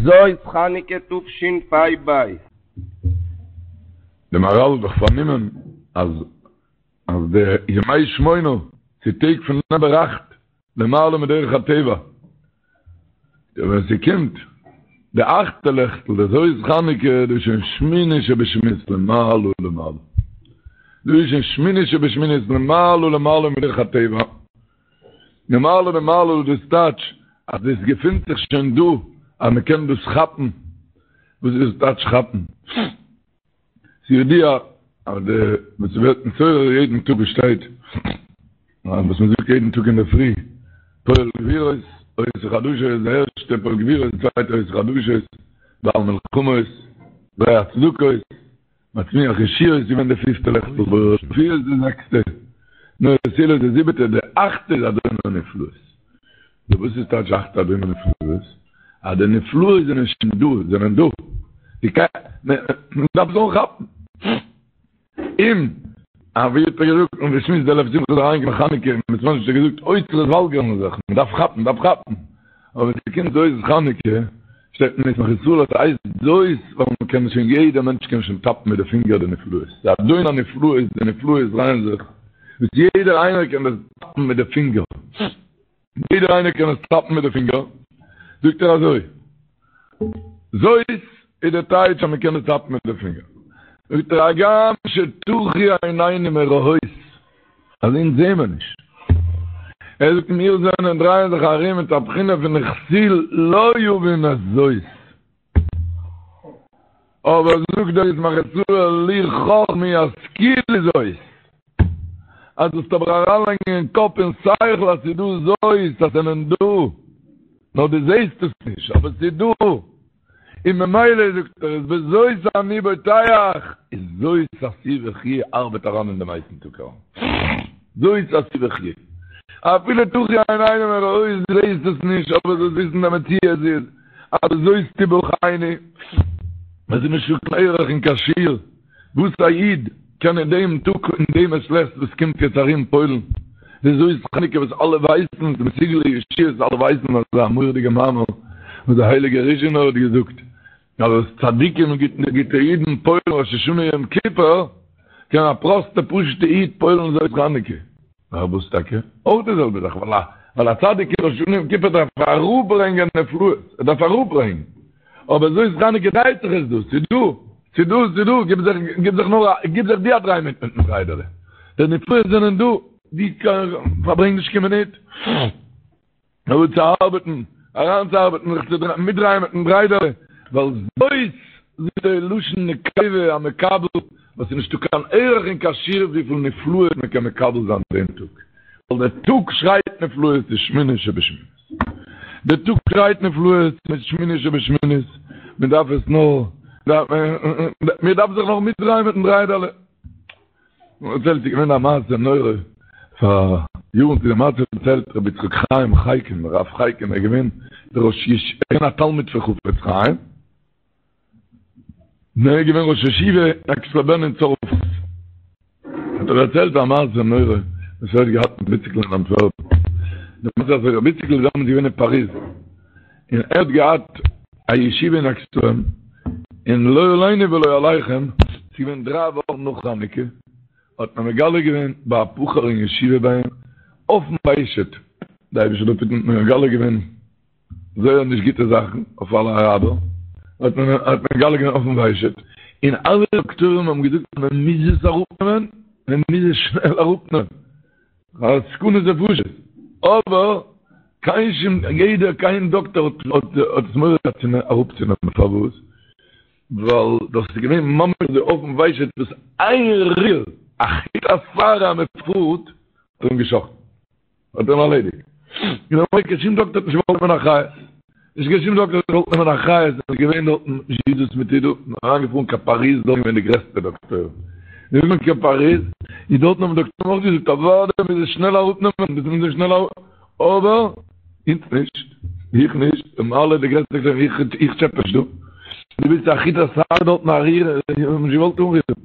זאת חנוכה תשפ"ב. די מהרל האט דאך פארנומען אז אז די ימי שמונה ס'איז טעג פון נומבער אכט למעלה מדרך הטבע, ווען ס'קומט די אכטע לעכטל די זאת חנוכה דאס איז שוין שמיני שבשמינית למעלה למעלה, דאס איז שוין שמיני שבשמינית למעלה למעלה מדרך הטבע, למעלה למעלה דאס טייטש אז דאס געפינט זיך שוין דא אז מ'קען דאס כאפן, וואס איז דאס טייטש כאפן? ס'איז ידוע אז די וואס ס'ווערט נתעורר יעדן טאג וואס שטייט וואס מ'זאגט יעדן טאג אינדערפרי פועל גבורות עושה חדשות די ערשטע פועל גבורות די צווייטע עושה חדשות בעל מלחמות זורע צדקות מצמיח ישועות איז געווען די פיפטע לעכטל בורא רפואות די זעקסטע נורא תהילות די זיבעטע די אכטע איז אדון הנפלאות די וואס איז טייטש אכטע אדון הנפלאות? אז די נפלאות זענען שוין דא, זענען דא. די ק מען דארף עס אנכאפן. און אווי האט ער געזאגט און געשמועסט דער לב שמחה איז אריינגעקומען חנוכה און בית מדרש האט ער געזאגט אוצרות וואלגערן זיך, מען דארף כאפן, מען דארף כאפן. אבער ווען ס'קומט זאת חנוכה, שטייט אין ישמח ישראל אז ס'הייסט זאת ווייל מען קען שוין יעדער מענטש קען שוין טאפן מיט די פינגער די נפלאות. די אדון הנפלאות, די נפלאות דרייען זיך, וואס יעדער איינער קען דאס טאפן מיט די פינגער. יעדער איינער קען עס טאפן מיט די פינגער, זאגט ער אזוי, זאת איז די טייטש אז מען קען עס טאפן מיט די פינגער, זאגט ער הגם שטחו עינינו מראות, אז אונז זעהן מיר נישט, ער זאגט מיר זענען דרייען זיך ארום מיט א בחינה פון וכסיל לא יבין את זאת, אבער זאגט דער ישמח ישראל לו חכמו ישכילו זאת, אז דו זאלסט אבער אריינלייגן אין קאפ און שכל אז ס'איז דא זאת, אז ס'זענען דא, נאר דו זעסט עס נישט, אבער ס'איז דא, און ממילא זאגט ער איז בזאת אני בוטח, איז זאת עשו וחיו ארבעט אריין אין דעם הייסן טאג אריין, זאת עשו וחיו, אפילו טחו עינינו מראות דו זעסט עס נישט, אבער זאלסט וויסן די מציאות איז אז בזאת תבחנו, עס איז נישטא קיין ערך און קיין שיעור וואס א איד קען אין דעם טאג אין דעם מעת לעת וואס קומט יעצט ארום פועל'ן, די זאת חנוכה וואס אלע ווייסן איז מסוגל לישועות, אלע ווייסן אזא מורא'דיגע מאמר וואס דער הייליגער ריזשינער האט געזאגט אז וואס צדיקים און גוטע אידן פועל'ן ראש השנה יום כיפור, קען א פראסטע פשוטע איד פועל'ן זאת חנוכה. פארוואס טאקע? אויך די זעלבע זאך, ווייל א צדיק אין ראש השנה יום כיפור דארף אראפברענגען נפלאות, ער דארף אראפברענגען, אבער זאת חנוכה דרייט זיך עס דא, ס'איז דא, ס'איז דא, ס'איז דא, גיב זיך, גיב זיך נאר א, גיב זיך דו א דריי מיט מיטן דריידעלע, די נפלאות זענען דא, דו פארברענג נישט קיין מינוט. נאר צו ארבעטן, אריינצוארבעטן, זיך צו מיטדרייען מיטן דריידעלע, ווייל זאת זאגט ער לשון נקבה המקבל, וואס איז נישטא קיין ערך און קיין שיעור וויפיל נפלאות מען קען מקבל זיין דעם טאג, ווייל דער טאג שרייט נפלאות איז שמיני שבשמינית, דער טאג שרייט נפלאות איז שמיני שבשמינית, מען דארף עס נאר, מען דארף זיך נאר מיטדרייען מיטן דריידעלע. מ'דערציילט ס'איז געווען א מעשה נורא פאר יארן צו די מעשה דערציילט רבי יצחק חיים חייקין רב חייקין ער איז געווען דער ראש יש ער איז געווען א תלמיד פון חפץ חיים און ער איז געווען ראש ישיבה אין עקס-לע-בען אין צרפת האט ער דערציילט א מעשה נורא וואס ער האט געהאט מיט ר' איציקל אין אנטווערפן די מעשה איז אזוי רבי איציקל איז דעמאלטס געווען אין פאריז און ער האט געהאט א ישיבה אין עקס-לע-בען, און לא עלינו ולא עליכם, ס'איז געווען דריי וואכן נאך חנוכה, האט מען מגלה געווען ביי א בחור אין ישיבה ביי אים, אויפן ושט, די אייבערשטער זאל אפהיטן, האט מען מגלה געווען זייער נישט גוטע זאכן אויף אלע אראבער, האט מען האט מען מגלה געווען אויפן ושט, און אלע דאקטוירים האבן געזאגט אז מען מוז עס אראפנעמען, מען מוז עס שנעל אראפנעמען. א סכנת נפשות, אבער קיין שום יעדער קיין דאקטער האט האט עס מורא געהאט צו אראפצונעמען, פארוואס? ווייל דאס איז געווען ממש אזוי אויפן ושט וואס איין ריר א חוט השערה אז מען פארט האט אים געשאכטן, האט אים ארלעדיגט, און ממילא קיין שום דאקטער האט נישט געוואלט נעמען אחריות, נישט קיין שום דאקטער האט געוואלט נעמען אחריות, עס איז געווען דארטן זשיזוס מיט אידא, אריינגעפארן קיין פאריז, דארט איז געווען די גרעסטע דאקטוירים, איז מען קיין פאריז, איז דארטן האבן דאקטוירים אויך געזאגט אוודאי מוז עס שנעל אראפנעמען, דאס מוז מען שנעל אראפ, אבער אונז נישט, איך נישט, און אלע די גרעסטע דאקטוירים, איך איך טשעפע נישט דא, דו ווילסט א חוט השערה דארטן א ריר, האבן נישט געוואלט אנרירן.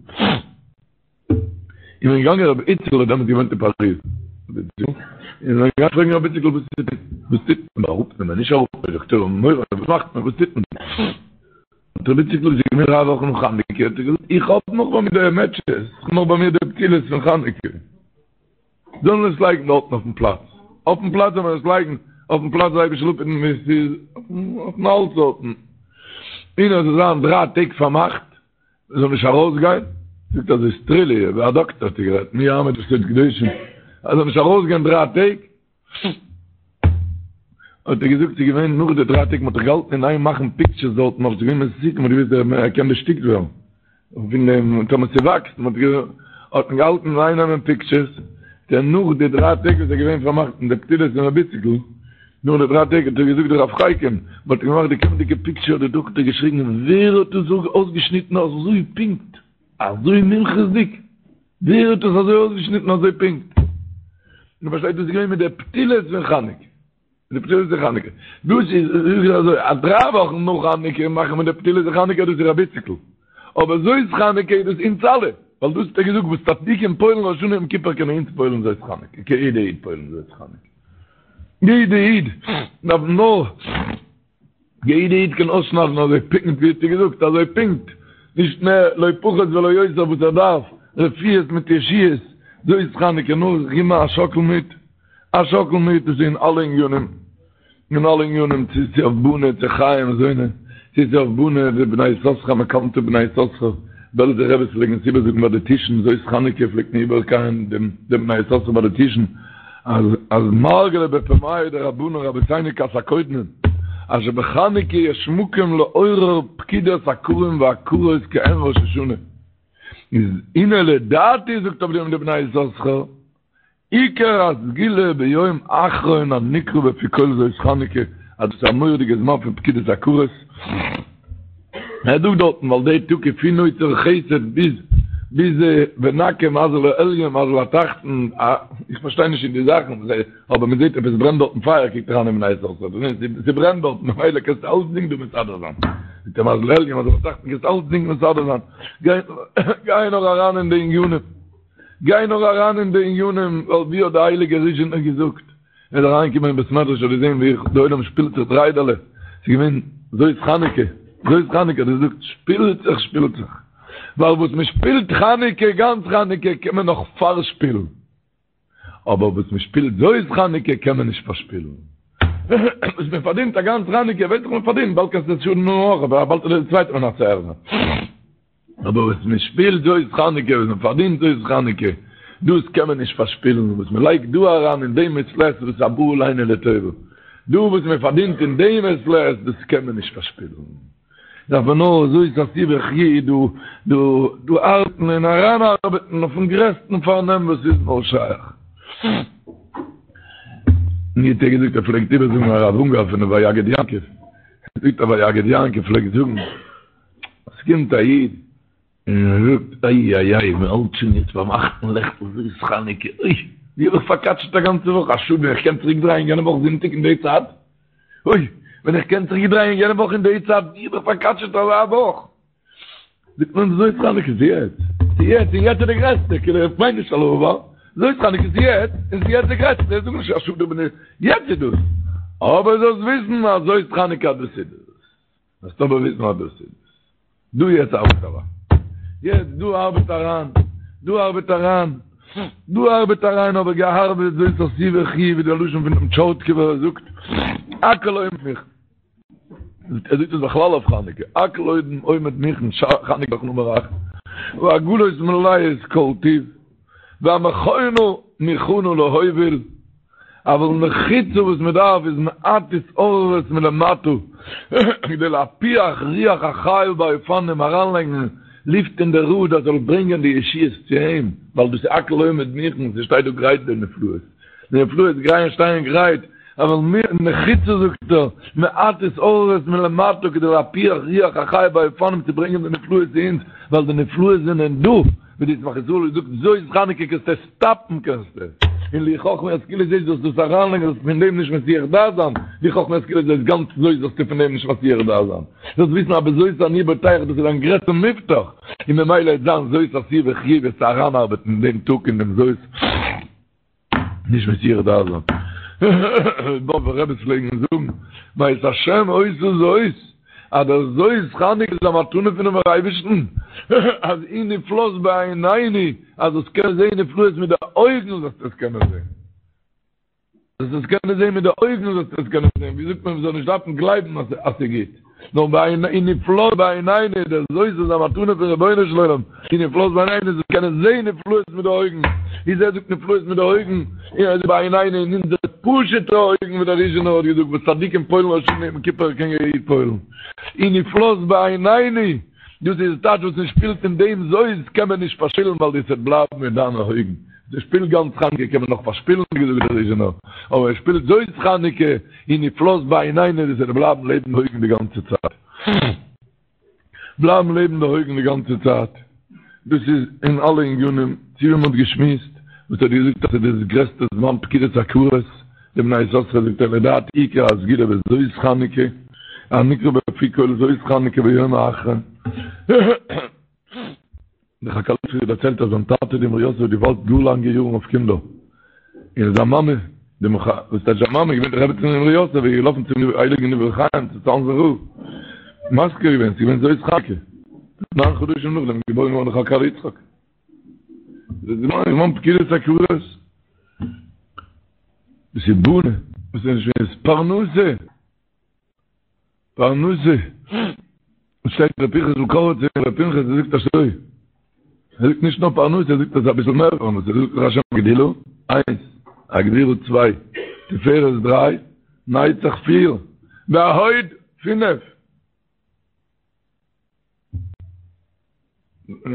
איז מען געגאנגען רבי איציקל האט דעמאלטס געוואוינט אין פאריז, איז מען געגאנגען פרעגן רבי איציקל וואס טוט מען, וואס טוט מען, אראפנעמען, נישט אראפנעמען, דאקטוירים האבן מורא, וואס מאכט מען, וואס טוט מען? האט רבי איציקל ס'איז געווען דריי וואכן נאך חנוכה, האט ער געזאגט, איך האב נאך ביי מיר די מעטשעס, איך האב נאך ביי מיר די פתילות פון חנוכה. זאל מען עס לייגן דארטן אויפן פלאץ, אויפן פלאץ זאל מען עס לייגן, אויפן פלאץ זאל אייביג שלאפן ווי עס איז, אויפן האלץ דארטן. און עס זאל זיין דריי טעג פארמאכט, מען זאל נישט ארויסגיין, זאגט אזוי סטרילי, ווי א דאקטער האט ער גערעדט, מי יעמוד בסוד קדושים, ער זאל נישט ארויסגיין דריי טעג, האט ער געזאגט ס'איז געווען נאך די דריי טעג מ'האט זיך געהאלטן אין איין מאכן פיקטשערס דארטן נאך ס'איז געווען מסוכן מ'האט געוואוסט ער קען דערשטיקט ווערן פון דעם טאמער ס'וואקסט מ'האט האט מען געהאלטן אין איין נעמען פיקטשערס דער נאך די דריי טעג וואס איז געווען פארמאכט אין די פתילות פון ר' איציקל נאך די דריי טעג האט ער געזאגט די רב חייקין מ'האט געמאכט די קומענדיגע פיקטשער האט די דאקטער געשריגן ווער האט דאס אויסגעשניטן אזוי פונקט אזוי מומחות'דיג ווער האט עס אזוי אויסגעשניטן אזוי פונקט? דו פארשטייסט דאס איז געווען מיט די פתילות פון חנוכה. די פתילות פון חנוכה. דאס איז זאג איך אזוי, אז דריי וואכן נאך חנוכה מאכן מיר די פתילות פון חנוכה דאס איז רבי איציקל. אבער זאת חנוכה איז דאס אונז אלע. ווייל דאס האט ער געזאגט וואס צדיקים פועל'ן ראש השנה יום כיפור קענען אונז פועל'ן זאת חנוכה. קען יעדע איד פועל'ן זאת חנוכה. יעדע איד דארף נאר. יעדע איד קען אויסשניידן אזוי פונקט ווי האט ער געזאגט אזוי פונקט, נישט מער לא פחות ולא יותר וואס ער דארף, רפואות מיט ישועות, זאת חנוכה נאר זיך געבן א שאקל מיט, א שאקל מיט דאס איז אין אלע עניינים, אין אלע עניינים צו ס'איז אויף בני צו חיי מזוני, צו ס'איז אויף בני די בני יששכר מקאנטע בני יששכר, בעלזער רביס פלעגן עס איבערזאגן ביי די טישן זאת חנוכה פלעגט מען איבערקייען דעם בני יששכר ביי די טישן, אז אז מרגלא בפומייהו דרבנן רבותינו כת הקודמים אז שבחנוכה יש מקום לעורר פקידת עקרים ועקרות כעין ראש השנה איז הנה לדעתי זאגט אויף דעם די בני יששכר עיקר הסגולה ביום אחרון הנקרא בפי כל זאת חנוכה אז דאס איז א מורא'דיגע זמן פון פקידת עקרות ער זאגט דארטן ווייל די טאג איז פון נוצר חסד ביז ביז ונקה מזל העליון מזל התחתון, איך פארשטיי נישט אין די זאכן, אבער מען זעט עפעס ברענט דארטן פייער קוקט אריין אין בני יששכר, ס'ברענט דארטן ממילא קענסטו אלצדינג דא מסדר זיין, זאגט ער מזל העליון מזל התחתון קענסט אלצדינג מסדר זיין, גיי נאר אריין אין די עניינים, גיי נאר אריין אין די עניינים, ווייל ווי האט די הייליגע ריזשינער געזאגט. ער איז אריינגעקומען אין בית מדרש האט געזען ווי די עולם שפילט זיך דריידעלע, ס'איז געווען זאת חנוכה, זאת חנוכה, האט ער געזאגט, שפילט זיך, שפילט זיך, ווייל וואס מען שפילט חנוכה, גאנץ חנוכה, קען מען נאך פארשפילן, אבער וואס מען שפילט זאת חנוכה קען מען נישט פארשפילן. וואס מען פארדינט א גאנץ חנוכה, ווייס איך מען פארדינט, באלד קענסטו עס שאדן אויך, אבער באלד איז די צווייטע מנצח זיין. אבער וואס מען שפילט זאת חנוכה, וואס מען פארדינט זאת חנוכה, דאס קען מען נישט פארשפילן, וואס מען לייגט דא אריין אין דעם מעת לעת, דאס איז הבא עלינו לטובה, דא וואס מען פארדינט אין דעם מעת לעת, דאס קען מען נישט פארשפילן. דארף מען נאר זאת עשו וחיו דא דא דא ארבעטן און אריינארבעטן אויפן גרעסטן פארנעם וואס איז נאר שייך. מיר האט ער געזאגט ער פלעגט איבערזאגן הרב אונגאר פון די ויגד יעקב, ער זאגט אז ויגד יעקב פלעגט זאגן, עס קומט א איד און ער זאגט איי איי איי מען האלט שוין יעצט ביים אכטן לעכטל זאת חנוכה, אוי ווי האב איך פארקאטשעט א גאנצע וואך, א שאד ווען איך קען צוריק דרייען יענע וואך זונטאג אין די צייט, אוי ווען איך קען צוריק דרייען יענע וואך אין די צייט, ווי האב איך פארקאטשעט אזא וואך, זאגט מען זאת חנוכה איז יעצט, ס'איז יעצט און יעצט איז די גרעסטע, כאילו איך מיין נישט על העבר, זאת חנוכה איז יעצט און ס'איז יעצט די גרעסטע, זאג נישט א שאד איך בין יעצט איז דאס, אבער זאלסט וויסן אז זאת חנוכה דאס איז דאס. זאלסט אבער וויסן אז דאס איז דא יעצט ארבעט אריין. יעצט דא ארבעט אריין. דא ארבעט אריין. דא ארבעט אריין אבער געארבעט זאת עשו וחיו ווי דער לשון פון דעם טשורטקובער ער זאגט הכל עומד מוכן. ער זאגט עס בכלל אויף חנוכה. הכל עומד מוכן חנוכה נאך נומער אכט. והעגלות מלאות כל טוב. והמכונה מוכנה להוביל. אבל נחוצה וואס מען דארף איז מעט התעוררות מלמטה כדי להפיח רוח החיה באופנים אריינלייגן לופט אין די ראד אז זאל ברענגען די ישועות צו אים ווייל דאס איז הכל עומד מוכן ס'שטייט דא גרייט די נפלאות די נפלאות גרייען שטייען גרייט אבל נחוצה זאגט ער מעט התעוררות מלמטה כדי להפיח רוח החיה באופנים צו ברענגען די נפלאות צו אונז ווייל די נפלאות זענען דא ווי די ישמח ישראל זאגט זאת חנוכה קענסטו עס סטאפן קענסטו און לו חכמו ישכילו זאת זאלסטו דאס אריינלייגן זאלסטו פון דעם נישט מסיח דעת זיין לו חכמו ישכילו זאת גאנץ זאת זאלסטו פון דעם נישט מסיח דעת זיין זאלסט וויסן אז בזאת אני בוטח דאס איז דיין גרעסטע מובטח און ממילא וועט זיין זאת עשו וחיו וועסטו אריינארבעטן אין דעם טאג אין דעם זאת נישט מסיח דעת זיין. באבובער רביס פלעגן זאגן, מאת השם היתה זאת. אז דער זאת חנוכה איז א מתנה פונעם אייבערשטן, אז היא נפלאת בעינינו, אז זאלסט קענען זען נפלאות מיט די אויגן זאלסטו עס קענען זען. זאלסט עס קענען זען מיט די אויגן זאלסטו עס קענען זען, ווי זאגט מען, מ'זאל נישט דארפן גלייבן אז אז ס'איז גוט, נאר בעיני היא נפלאת בעינינו, דער זאת איז א מתנה פון רבונו של עולם, היא נפלאת בעינינו, זאלסט קענען זען נפלאות מיט די אויגן, איז ער זאגט נפלאות מיט די אויגן, און ער זאגט בעינינו אין אונזערע פשוט'ע אויגן ווי דער ריזשינער האט געזאגט וואס צדיקים פועל'ן ראש השנה יום כיפור קען יעדער איד פועל'ן, היא נפלאת בעינינו, דאס איז טייטש וואס מען שפילט אין דעם זאת קען מען נישט פארשפילן ווייל דאס וועט בלייבן אין דיינע אויגן. מען שפילט גאנץ חנוכה קען מען נאך פארשפילן ווי געזאגט דער ריזשינער, אבער מען שפילט זאת חנוכה היא נפלאת בעינינו דאס וועט בלייבן לעבן די אויגן די גאנצע צייט. בלייבן לעבן די אויגן די גאנצע צייט. דאס איז אין אלע עניינים, צו ווי מען האט געשמועסט, וואס האט געזאגט אז ס'איז דאס גרעסטע זמן פקידת עקרות, די בני יששכר זאגט ער לדעתי עיקר הסגולה בזאת חנוכה, הנקרא בפי כל זאת חנוכה ביום האחרון. דער חקל יצחק האט דערציילט אז זיין טאטע די אמרי יוסף האט געווארט גאר לאנגע יארן אויף קינדער, און זיין מאמע, די מח א, וואס טייטש זיין מאמע איז געווען די רעבעצין פון אמרי יוסף, איז געלאפן צום הייליגן דברי חיים צו צאנזער רב, מזכיר געווען, ס'איז געווען זאת חנוכה, ניין חדשים נאכדעם איז געבוירן געווארן דער חקל יצחק. דאס איז זמן פקידת עקרות. דאס איז בונה, דאס איז נישט פרנסה. פרנסה, שטייט ר' פנחס'ל קאריצער ר' פנחס ער זאגט אזוי, ער זאגט נישט נאר פרנסה, ער זאגט אז אביסל מער פרנסה, ער זאגט לך השם הגדולה, איינס, הגבורה צוויי, תפארת דריי, נצח פיר, והוד פינף.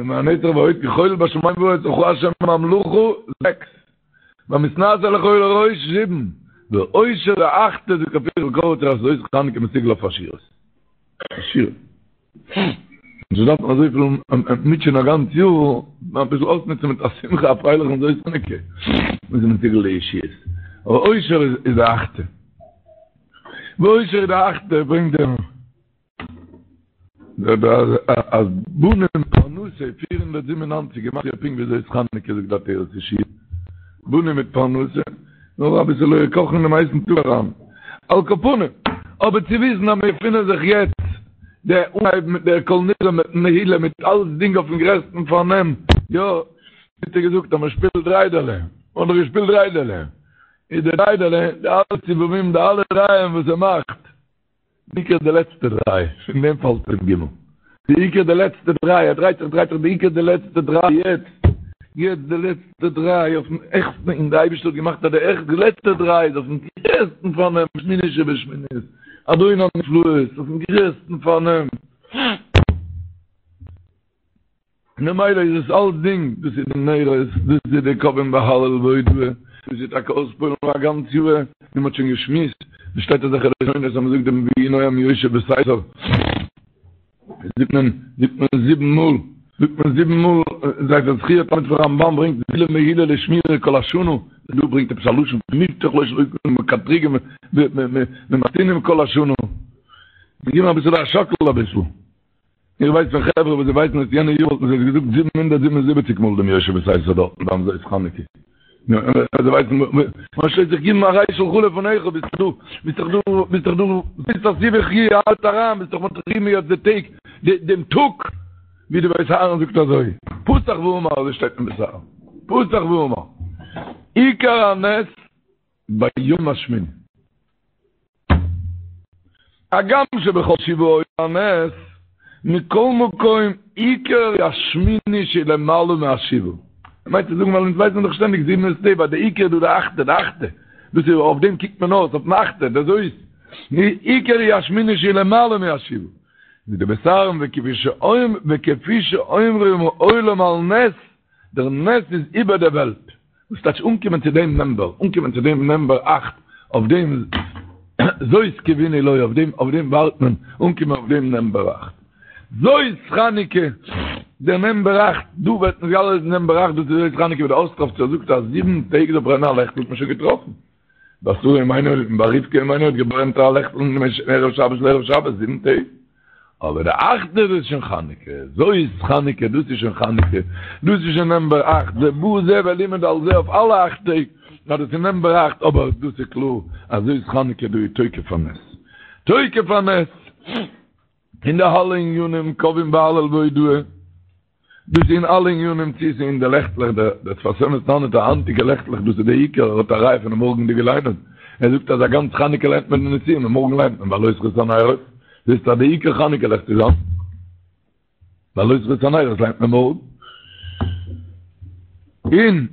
והנצח וההוד כחול בשמים ובארץ לך השם הממלכה זעקס והמתנשא לכל לראש זיבן ועושר די אכטע זאגט ר' פנחס'ל קאריצער אז זאת חנוכה מסוגל אויף עשירות עשירות נישט דארפן אזויפיל מוטשען א גאנץ יאר אביסל אויסנוצן מיט א שמחה א פרייליכן זאת חנוכה איז מסוגל לישועות אבער עושר איז די אכטע ועושר איז די אכטע ברענגט דער אז בנים פרנסה 497 גימטריא פונקט ווי זאת חנוכה זאגט די עטרת ישועה בנים מיט פרנסה נאר אביסעלע קאכן אין דעם הייסן טאג אריין על כל פנים אבער צו וויסן אז מיר געפינען זיך יעצט דער אנהייב מיט דער כל נדרי מיט נעילה מיט אלסדינג אויפן גרעסטן פארנעם יא האט ער געזאגט אז מען שפילט דריידעלע מען האט דאך געשפילט דריידעלע איז די דריידעלע די אלע סיבובים די אלע דרייען וואס ער מאכט בעיקר די לעצטע דריי, פון דעם פאלט אים גימל. בעיקר די לעצטע דריי, ער דרייט זיך דרייט זיך, בעיקר די לעצטע דריי, יעצט, יעצט די לעצטע דריי אויפן העכסטן, און די אייבערשטער האט געמאכט אז די העכסט, די לעצטע דריי איז אויפן גרעסטן פארנעם, שמיני שבשמינית, אדון הנפלאות, אויפן גרעסטן פארנעם. ממילא איז עס אלסדינג, דאס איז די נרות, דאס איז די קובעים בהלל והודאה, דאס איז טאקע אויספועלן פאר א גאנץ יאר, ווי מען האט שוין געשמועסט, עס שטייט אזעלכע לשונות אז מען זאגט דעם ויהי נועם יושב בסתר, זאגט מען, זאגט מען זיבן מאל, זאגט מען זיבן מאל, ספר זכירת תלמיד פון רמב"ן ברענגט סגולה מעולה לשמירה כל השנה, דא ברענגט עפעס א לשון פון מובטח לו שלא יקנו מקטריגים ומקטינים כל השנה, געבן אביסל א שאקל אביסל. איך ווייס פון חברה וואס זיי ווייסן אז יענע יאר וואלטן זיי עס געזאגט 777 מאל דעם יושב בסתר דארטן ביים זאת חנוכה. זיי ווייסן וואס שטייט זיך גיבן א ריי שלך לפניך ביסט דאך דא ביסט דאך דא ביסט דאך דא ביסט דאך סיבי חי האלט אריין ביסט דאך מטרימי יעצט די טעג דעם טאג ווי די בית אהרן זאגט אזוי פתח ואמר אזוי שטייט אין בית אהרן פתח ואמר עיקר הנס ביום השמיני. הגם שבכל שבעה היה הנס, מכל מקום עיקר השמיני שלמעלה מהשבעה. ער מיינט צו זאגן ווייל אונז ווייסן דאך שטענדיג זיבן איז טבע, די עיקר איז דא די אכטע, די אכטע, דאס איז אויף דעם קוקט מען אויס, אויפן אכטע, דער זאת, עיקר היא השמיני שלמעלה מהשבעה. ווי די בית אהרן וכפי שאומרים העולם על נס, דער נס איז איבער דער וועלט. וואס טייטש אנקומען צו דעם נומבער, אנקומען צו דעם נומבער אכט, אויף דעם זאת קוינו לו, אויף דעם אויף דעם ווארט מען, אנקומען אויף דעם נומבער אכט. זאת חנוכה, דער נומבער אכט, דא ווערט נתגלה די נומבער אכט, דאס איז זאת חנוכה ווי דער אוסטראווצער זאגט אז זיבן טעג זאל ברענען א לעכטל האט מען שוין געטראפן. ביי שרה אמנו און ביי רבקה אמנו האט געברענט א לעכטל מערב שבת לערב שבת זיבן טעג. אבער די אכטע דאס איז שוין חנוכה, זאת חנוכה, דאס איז שוין חנוכה, דאס איז שוין נומבער אכט, זה בא זה ולימד על זה אויף אלע אכט טעג, אז דאס איז נומבער אכט, אבער דאס איז קלאר אז זאת חנוכה דא איז תוקף הנס, תוקף הנס. אין די אלע עניינים קובעים בהלל והודאה, דאס איז אין אלע עניינים צו ס'איז אין די לעכטלעך, דער שפת אמת טענה'ט אז היינטיגע לעכטלעך דאס איז די עיקר, ער האט א ראיה פונעם מארגנדיגע ליינען, ער זאגט אז א גאנץ חנוכה ליינט מען די נשיאים און מארגן ליינט מען בהעלותך את הנרות, זעסטו אז די עיקר חנוכה לעכט איז היינט, בהעלותך את הנרות ליינט מען מארגן. און.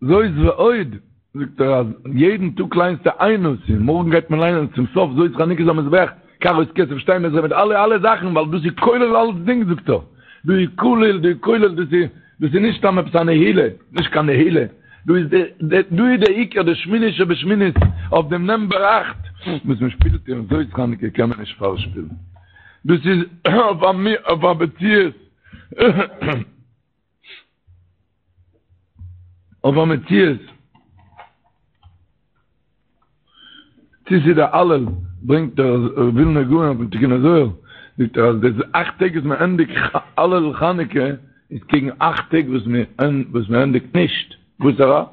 זאת ועוד, זאגט ער אז יעדן טאג ליינסטו איין נשיא, מארגן גייט מען ליינען צום סוף זאת חנוכת המזבח, קערות כסף שתים עשרה מיט אלע אלע זאכן, ווייל דאס איז כולל אלצדינג זאגט ער, דא איז כולל, דא איז כולל, דאס איז דאס איז נישט סתם עפעס א נהילה, נישט קיין נהילה, דא איז די דא איז די עיקר די שמיני שבשמינית אויף דעם נומבער אכט וואס מען שפילט אין זאת חנוכה קען מען נישט פארשפילן, דאס איז אויף א מציאות. אויף א מציאות צו ס'איז דער הלל ברענגט דער ווילנער גאון אויפן תיקוני זוהר זאגט ער אז די אכט טעג וואס מען ענדיגט הלל חנוכה איז קעגן אכט טעג וואס מען וואס מען ענדיגט נישט וואסערע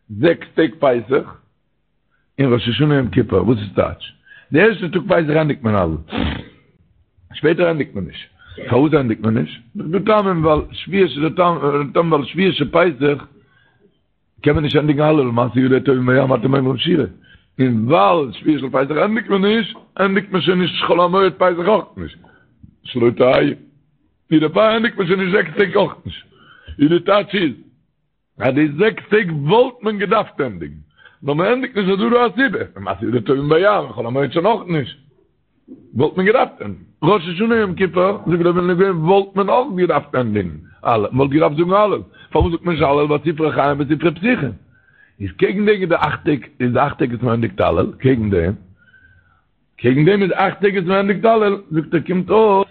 זעקס טעג פסח און ראש השנה יום כיפור, וואס איז טייטש? די ערשטע טאג פסח ענדיגט מען הלל, שפעטער ענדיגט מען נישט, פארוואס ענדיגט מען נישט? דא טעמים ווייל שביעי של טעם ווייל שביעי של פסח קען מען נישט ענדיגן הלל מעשה ידי טובעים בים אתם אומרים שירה, און ווייל שביעי של פסח ענדיגט מען נישט, ענדיגט מען שוין נישט חול המועד פסח אויך נישט, שלא תהא, ווי דערפאר ענדיגט מען שוין נישט זעקס טעג אויך נישט, איז די טייטש איז. אז די זעקס טעג וואלט מען געדארפט ענדיגן, נאר מען ענדיגט נישט איז דא דא א סיבה, מעשה ידי טובעים בים, חול המועד שוין אויך נישט, וואלט מען געדארפט ענדיגן. ראש השנה יום כיפור, זאגט דער ווילנער גאון, וואלט מען אויך געדארפט ענדיגן הלל, מען וואלט געדארפט זאגן הלל, פארוואס זאגט מען נישט הלל ווייל ספרי חיים וספרי פתוחים איז קעגן דעם איז די אכט טעג, איז די אכט טעג וואס מען ענדיגט הלל, קעגן דעם, קעגן דעם איז אכט טעג וואס מען ענדיגט הלל, זאגט ער קומט אויס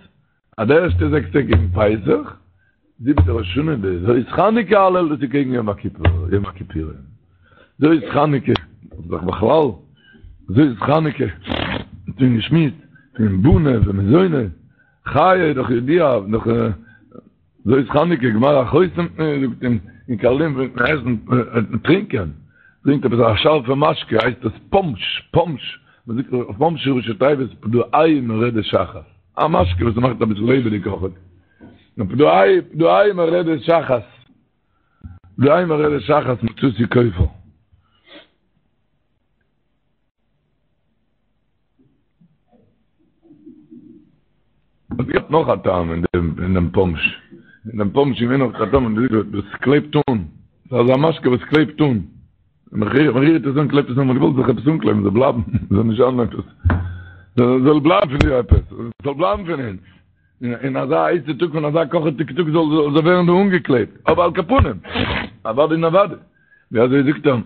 אז די ערשטע זעקס טעג קעגן פסח, זיבעטע ראש השנה די זאת חנוכה הלל דאס איז קעגן יום הכיפור, יום הכיפורים. זאת חנוכה, איז דאך בכלל, זאת חנוכה, האט מען געשמועסט פון בני ומזוני, חיי איז דאך ידוע, דאך זאת חנוכה גמר החותם זאגט אין אין קארלין פלעגט מען עסן און טרינקען, טרינקט עפעס א שארפע משקה הייסט עס פאנטש, פאנטש, מען זאגט אויף פאנטש ראשי תיבות פדעהו מרדת שחת. א משקה וואס מאכט אביסל לעבעדיג אויכעט. פדעהו, פדעהו מרדת שחת. פדעהו מרדת שחת מצאתי כופר. עס געבט נאך א טעם אין דעם אין דעם פאנטש. אין דעם פאנטש איז געווען נאך א טעם, דאס קלעבט אן. ס'איז אזא משקה וואס קלעבט אן. מען רירט עס אן, קלעבט עס אן, מען האט געוואלט זיך עפעס אנקלעבן, זאל בלייבן, זאל נישט זיין עפעס, זאל בלייבן פון דיר עפעס, זאל בלייבן פון אונז, אין אזא הייסע טאג פון אזא קאכעדיגע טאג זאל זאל ווערן דא אנגעקלעבט, אבער על כל פנים, אוודאי און אוודאי, ווי אזוי זאגט ער,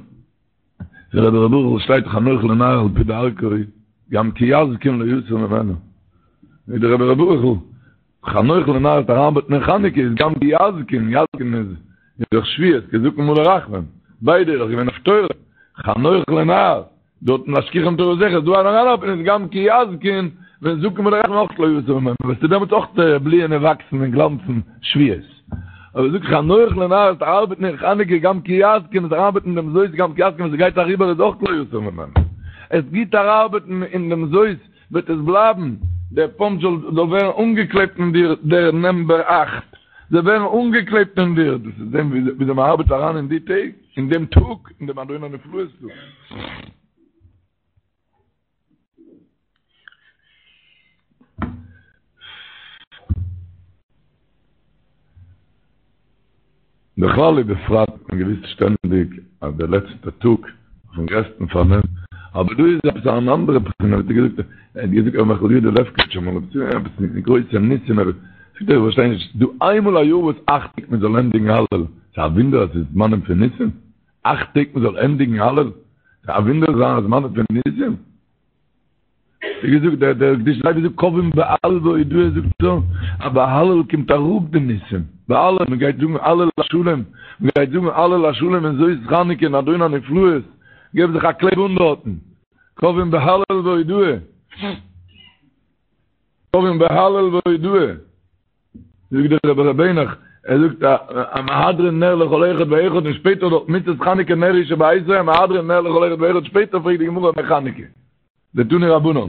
דער רבי ר' ברוכ'ל שטייט חנוך לנער על פי דרכו, גם כי יזקין לא יסור ממנה, ווי דער רבי ר' ברוכ'ל חנוך לנער וועט אריינארבעטן אין חנוכה איז גם כי יזקין, יזקין איז דאך שבועות, כי זקן מלא רחמים, ביידע איז דאך געווען אויף תורה, חנוך לנער, דארטן להשכיחם תורתך איז דא אריינארבעטן איז גם כי יזקין, ווען זקן מלא רחמים אויך לא יסור ממנה, וועסטו דעמאלטס אויך בליען און וואקסן און גלאנצן שבועות. אבער זאג חנוך לנער וועסט ארבעטן אין חנוכה גם כי יזקין וועסט אריינארבעטן אין דעם זאת גם כי יזקין ווען ס'גייט אריבער איז אויך לא יסור ממנה. עס גוט אריינארבעטן אין דעם זאת וועט עס בלייבן, דער פאנטש זאל זאל ווערן אנגעקלעבט אין דיר, דער נאמבער אכט זאל ווערן אנגעקלעבט אין דיר, דאס איז דעם וויאזוי מען ארבעט אריין אין די טעג, אין דעם טאג, אין דעם אדון הנפלאות טאג. בכלל ובפרט האט מען געוויסט שטענדיג אז דער לעצטער טאג אויפן גרעסטן פארנעם, אבער דא איז עפעס אן אנדערע בחינה, האט ער געזאגט, ער האט געזאגט ר' מיכל יודא לעפקאוויטש אמאל עפעס עפעס מיט גרויסע ניסים, ער זאגט איך פארשטיי נישט, דא איינמאל א יאר וואס אכט טעג מען זאל ענדיגן הלל, ס'איז א וואונדער אז ס'איז זמנים פון ניסים? אכט טעג מען זאל ענדיגן הלל? ס'איז א וואונדער ס'זענען זמנים פון ניסים? ווי געזאגט דער דער קדושת לוי זאגט קובעים בהלל והודאה זאגט ער אז ביי הלל קומט אראפ די ניסים ביי הלל מען גייט זאגן הלל השלם מען גייט זאגן הלל השלם אין זאת חנוכה אין אדון הנפלאות געב זיך א קלעב אן דארטן קובעים בהלל והודאה קובעים בהלל והודאה זאגט דער רבי ר' העניך, ער זאגט א מהדרין נר לכל אחד ואחד און שפעטער דארט מצות חנוכה נר הוא שבביתו מהדרין נר לכל אחד ואחד שפעטער פרעגט די גמרא מאי חנוכה דתנו רבנן.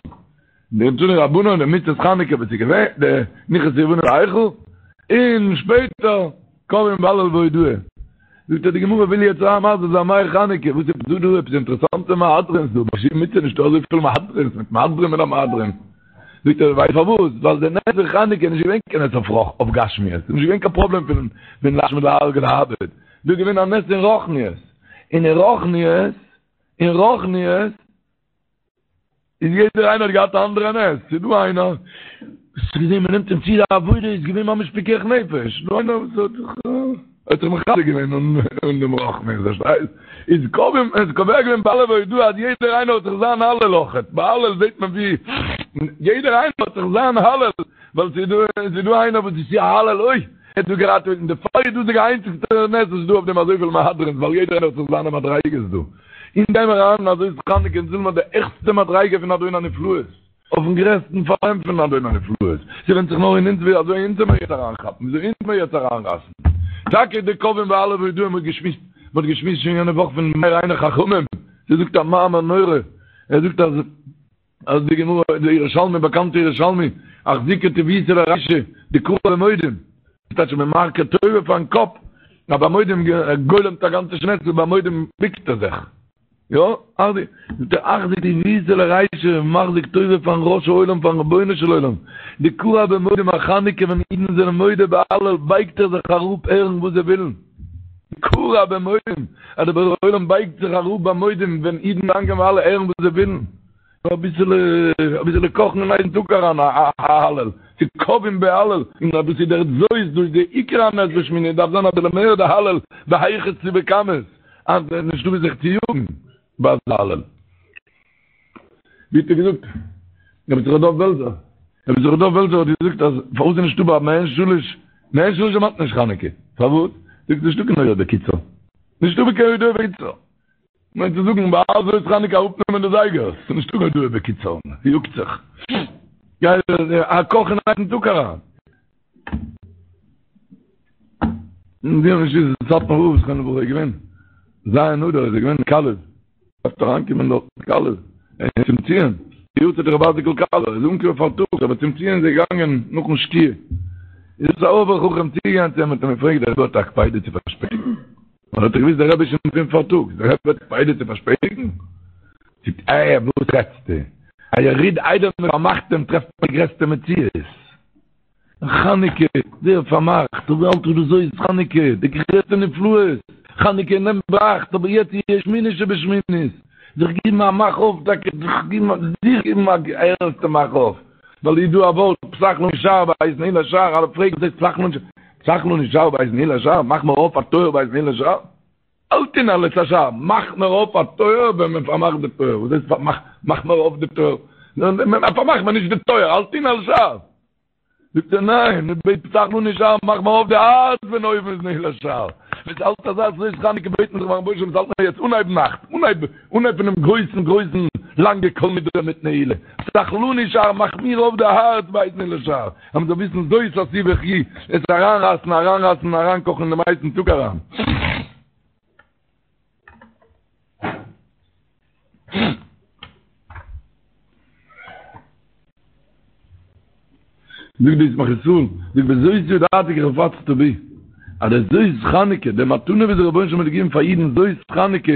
די תנו רבנן די מצות חנוכה וואס איז געווען, די נכנסו יוונים להיכל, און שפעטער קבעום בהלל והודאה. זאגט ער די גמרא וויל יעצט אריין מסביר זיין מאי חנוכה, וואס איז דא דא עפעס אינטערעסאנטע מהדרינ'ס דא, ביי שום מצוה נישטא אזויפיל מהדרינ'ס מיט מהדרין מן המהדרין. זאגט ער ווייסט פארוואס, ווייל די נס פון חנוכה איז נישט געווען קיין נס אויף רוח אויף גשמיות, ס'איז נישט געווען קיין פראבלעם פון פון להשמיד להרוג ולאבד, דא איז געווען א נס אין רוחניות, און אין רוחניות, אין רוחניות, איז יעדער איינער האט געהאט א אנדערע נס, ס'איז דא איינער וואס האט געזען מ'נעמט אים צו די עבודה איז געווען ממש פיקח נפש, דא איינער וואס האט זיך האט זיך מחזק געווען אין דעם רוחניות, פארשטייסט? איז קובע איז קובע געווען בהלל והודאה אז יעדער איינער האט זיך זיין הלל אויכעט, ביי הלל זעט מען ווי יעדער איינער האט זיך זיין הלל, ווייל ס'איז דא ס'איז דא איינער וואס איז צו א הלל אוי ער האט דא געראטעוועט און דערפאר איז דאס די איינציגסטע נס וואס איז דא אויף דעם אזויפיל מהדרינ'ס ווייל יעדער איינער האט זיך זיינע מדריגות דא. אונז גיימער אריין אין א זאת חנוכה אונז ווילן מיר די העכסטע מדריגה פון אדון הנפלאות, אויפן גרעסטן פארנעם פון אדון הנפלאות, ס'ווענדט זיך נאר אין אונז ווי אזוי אונז וועמיר יעצט אריינכאפן, ווי אזוי אונז וועמיר יעצט אריינרייסן. טאקע די קובעים בהלל והודאה מ'האט געשמועסט, מ'האט געשמועסט שוין יענע וואך פון מאיר עיני חכמים, ס'זאגט א מאמר נורא, ער זאגט אז אז די גמרא, די ירושלמי, באקאנטע ירושלמי, אחזיקא טיבותא לרישא, דכרע במודים, טייטש מען מכיר טובה פארן קאפ, א ביי מודים גולמ'ט א גאנצע שמונה עשרה ביי מודים ביקט ער זיך, יא, זאגט ער אחזיק טיבותא לרישא, מחזיק טובה פארן ראש העולם פארן רבונו של עולם, דכרע במודים א חנוכה ווען אידן זענען מודה בהלל בייגט ער זיך אראפ הערן וואס זיי ווילן, דכרע במודים, אז דער בורא עולם בייגט זיך אראפ ביי מודים ווען אידן דאנקען בהלל הערן וואס זיי ווילן. אביסעלע אביסעלע קאכן אין הייסן טאג אריין א הלל, צו קובעים בהלל, און אז דאס איז דער זאת, דאס איז די עיקר הנס בשמיני, דארף זיין אביסעלע מער די הלל בהיכת צו בכמות, אז עס איז נישטא ווי זיך צו יאגן ביי אזא הלל. ווי האט ער געזאגט? רבי יששכר דוב בעלזער, רבי יששכר דוב בעלזער האט געזאגט אז פארוואס איז נישטא ביי מעין שלש, מעין שלש דערמאנט נישט חנוכה, פארוואס? זאגט נישטא קיין הודאה בקיצור, נישטא קיין הודאה בקיצור. מיינט צו זאגן ביי זאת חנוכה אראפנעמען די זייגערס, ס'איז נישטא קיין הודאה בקיצור, יאגט זיך. גיי א קאך אין הייסן טאג אריין. און ווי נישט איז סאטמאר רב זכרונו לברכה איז געווען ז' אדר איז ער געווען אין קאלוב, דארף אריינקומען דארט אין קאלוב, צום ציון, די יארצייט רבי אייזיק'ל קאלובער, איז אנגעקומען פארטאגס אבער צום ציון איז ער געגאנגען נאכן שקיעה, איז עפעס א אויבער חכם צוגעגאנגען צו אים האט אים געפרעגט דער רבי האט א קפידה צו פארשפעטיגן? ווייל האט ער געוויסט דער רבי איז שוין פון פארטאגס, דער רבי האט קפידה צו פארשפעטיגן? זאגט ער, וואס רעדסטו? א יריד איידער מען פארמאכט אים טרעפט מען די גרעסטע מציאות. חנוכה, ווער פארמאכט? אבער אלטער דאס זאת חנוכה, די גרעסטע נפלאות, חנוכה נעמט ביינאכט, אבער יעצט איז שמיני שבשמינית, זיך גיבן א מאך אויף טאקע, זיך גיבן א זיך גיבן א ערנסטע מאך אויף, ווייל איז דא א ווארט פתח לנו שער בעת נעילת שער, אלע פרעגן וואס הייסט פתח לנו שער? פתח לנו שער בעת נעילת שער, מאך מיר אויף א טויער בעת נעילת שער? אל תנעל את השער, מאך מיר אויף א טויער ווען מען פארמאכט די טויער, וואס הייסט פארמאך, מאך מיר אויף די טויער? פארמאך מיר נישט די טויער, אל תנעל שער! זאגט ער ניין, מען בעט פתח לנו שער, מאך מיר אויף די הארץ ווען אויבן איז נעילת שער. ווען ס'האלט אזא זאת חנוכה בעט מען זיך ביים רבונו של עולם ס'האלט מיר יעצט אנהייב נאכט, אנהייב אנהייב פונעם גרויסן גרויסן לאנגע כל נדרי מיט נעילה, פתח לנו שער, מאך מיר אויף די הארץ בעת נעילת שער, אז מ'זאל וויסן זאת עשו וחיו, עס אריינרייסן אריינרייסן און אריינקאכן אין דעם הייסן טאג אריין. זאגט די ישמח ישראל, זאגט בזאת ידעתי כי חפצת בי, אז די זאת חנוכה, די מתנה וואס דער רבונו של עולם האט געגעבן פאר אידן זאת חנוכה,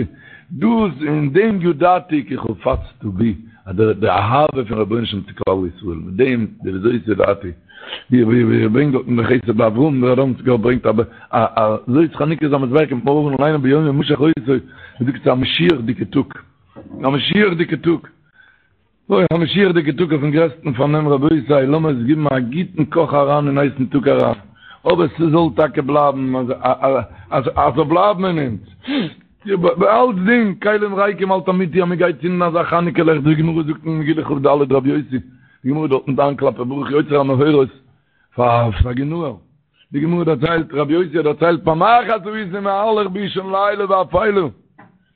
דאס אין דעם ידעתי כי חפצת בי, אז די אהבה פון רבונו של עולם צו כלל ישראל, מיט דעם די בזאת ידעתי, ווי ווי ער ברענגט דארט אין די חסד לאברהם, דער ראדאמסקער ברענגט א א זאת חנוכה איז א מזבח קומט מארגן ליינען ביום המשח אותו, מ'זאגט ס'איז א משיח'דיגע טאג, א משיח'דיגע טאג. אוי, א משיח'דיגע טאג אויפן גרעסטן פארנעם רבותי, לאמיר עס גיבן א גוטן קאך אריין אין הייסן טאג אריין, אבער ס'זאל טאקע בלייבן, אז ס'זאל בלייבן אין אונז, ביי אלצדינג, כלים ריקים אל תמעיטי אז מ'גייט צינדן אזא חנוכה לעכט, די גמרא זאגט אין מגילה כ"ד רבי יוסי, די גמרא דארטן דן כלפי ברוך יוצר המאורות פאר סגי נהור, די גמרא דערציילט, רבי יוסי האט דערציילט פעם אחת הייתי מהלך באישון לילה ואפלה,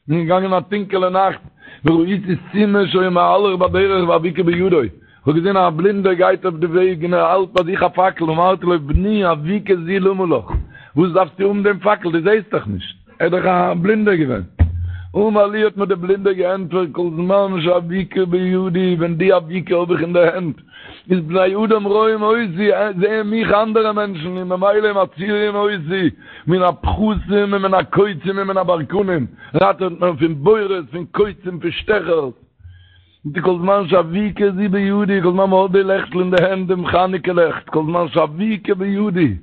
כ'בין געגאנגען א טונקעלע נאכט, וראיתי סומא שהיה מהלך בדרך ואבוקה בידו, איך האב געזען א בלינדער גייט אויף די וועג און ער האלט ביי זיך א פאקל, אמרתי לו בני אבוקה זו למה לך, וואס דארפסטו האבן דעם פאקל, דו זעסט דאך נישט, ער איז דאך א בלינדער געווען. אמר לי האט מיר דער בלינדער געענטפערט כל זמן שאבוקה בידי, ווען די אבוקה האב איך אין די הענט, איז בני אדם רואים אותי, זעען מיך אנדערע מענטשן, און ממילא מצילין אותי מן הפחתים ומן הקוצים ומן הברקנים, ראטעוועט מען פון בורות, פון קוצים, פון שטעכערס. כל זמן שאבוקה זו בידי, כל זמן מ'האט די לעכטל אין די הענט, דעם חנוכה לעכט, כל זמן שאבוקה בידי,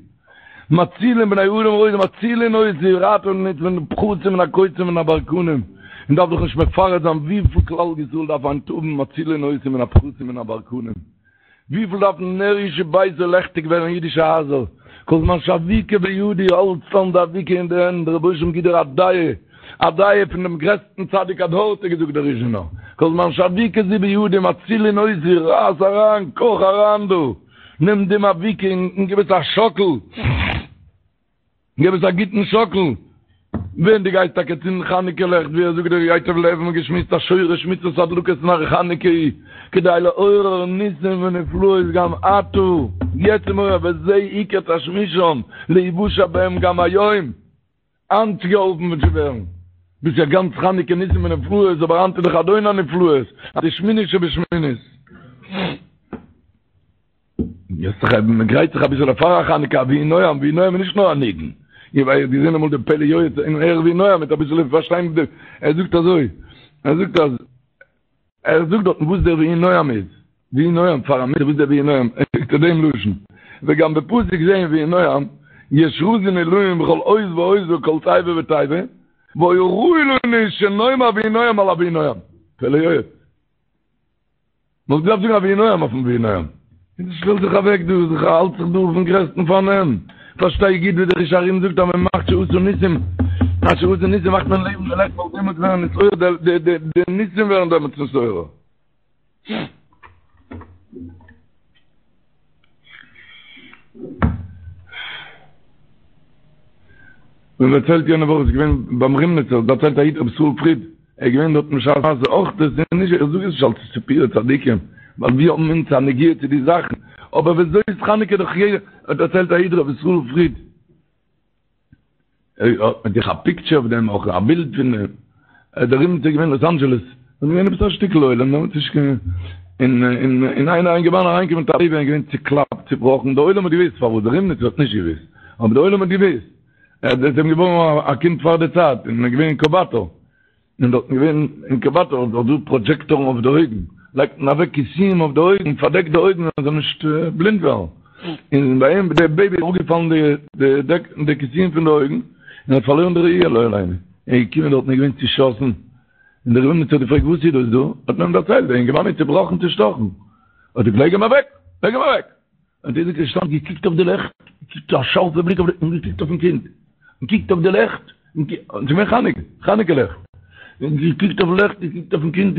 מצילין בני אדם רואים מצילין אותי, ראטעווען אונז פון די פחתים און הקוצים און הברקנים, מען דארף דאך נישט מפרט זיין וויפיל כלל ישראל דארף היינט האבן מצילין אותי מן הפחתים און הברקנים, וויפיל דארף נר איש וביתו לעכטיג ווערן אידישע הייזער, כל זמן שאבוקה בידי האלטסט אן די אבוקה אין די הענט, דער רבונו של עולם גיט דיר א דעה, א דעה פון דעם גרעסטן צדיק הדור האט ער געזאגט דער ריזשינער, כל זמן שאבוקה זו בידי מצילין אותי, רייס אריין, קאך אריין דא. נעם דעם אבוקה און גיב עס א שאקל, גיב עס א גוטן שאקל, ווען דו גייסט טאקע צינדן חנוכה לעכט, ווי ער זאגט דער ייטב לב, מ'האט געשמועסט אז שורש מצוות הדלקת נר חנוכה היא כדי לעורר ניסים ונפלאות גם עתה, יעצט איז מעורר וזה עיקר תשמישם להיוושע בהם גם היום. היינט געהאלפן צו ווערן. דאס איז יא גאנץ חנוכה ניסים ונפלאות, אבער היינט איז דאך אדון הנפלאות, אז די שמינית שבשמינית. יעצט זיך מען גרייט זיך אביסעלע פאר א חנוכה, א ויהי נועם, ויהי נועם איז נישט נאר א ניגון. איך האב געזען אמאל די פלא יועץ אין ערך ויהי נועם מיט אביסעלע פארשטיין, ער זאגט אזוי, ער זאגט אז ער זאגט דארטן וואס דער ויהי נועם איז, ויהי נועם פאר א מצוה וואס דער ויהי נועם, ער זאגט דעם לשון, וגם בפסוק זה אין ויהי נועם, יש רזין עילאין בכל אות ואות וכל תיבה ותיבה, והיה ראוי לנו שנאמר ויהי נועם על הויהי נועם. פלא יועץ. מ'וואלט געדארפט זאגן א ויהי נועם אויפן ויהי נועם. און שטעל זיך אוועק דא, זיך האלט זיך דא אויפן גרעסטן פארנעם. פארשטיי גוט ווי דער חידושי הרי"ם זאגט אז מען מאכט שעשה ניסים, אז שעשה ניסים מאכט מען לעבן די לעכט ווייל דעמאלטס ווערן נתעורר די די די ניסים ווערן דעמאלטס נתעורר. מען דערציילט יענע וואך איז געווען ביים רימניצער דערציילט א איד רבי ישראל פריד ער איז געווען דארט בשעת מעשה אויך דאס איז נישט איך זאג עס נישט אלס סיפורי צדיקים ווייל ווי האבן אונז א נגיעה צו די זאכן אבער וזאת חנוכה דאך יעדער האט דערציילט א איד רבי ישראל פריד ער האט מיט זיך א פיקטשער אויף דעם אויך א בילד פון דעם דער רימניצער איז געווען אין לאס אנדזשעלעס און געווען עפעס א שטיקל עולם דעמאלטס נישט קיין און און און איינער א אינגערמאן אריינגעקומען מיט א בעיבי און געווען צוקלאפט צובראכן דער עולם האט געוואוסט פארוואס דער רימניצער האט נישט געוואוסט אבער דער עולם האט געוואוסט ער איז אים געבוירן א קינד פאר די צייט און איז געווען אין אינקובאטאר און דארטן געווען אינקובאטאר איז דאך דא פראדזשעקטארן אויף די אויגן, לייגט מען אוועק כיסויים אויף די אויגן, פארדעקט די אויגן אז זאל נישט בלינד ווערן, און ביי אים די בעיבי איז אראפגעפאלן די די די כיסויים פון די אויגן, און האט פארלוירן די ראי' לא עלינו, ער איז געקומען דארטן איז געווען צושאסן, און דער רימניצער האט געפרעגט וואס איז דאס דא, האט מען אים דערציילט, דער אינגערמאן איז צובראכן צושטאכן, האט ער געזאגט לייג אים אוועק, לייג אים אוועק. און ער איז געשטאנען געקוקט אויף די לעכט, געקוקט א שארפע בליק אויף די, און געקוקט אויפן קינד, און געקוקט אויף די לעכט, און ס'איז געווען חנוכה, חנוכה לעכט, און געקוקט אויף לעכט, געקוקט אויפן קינד,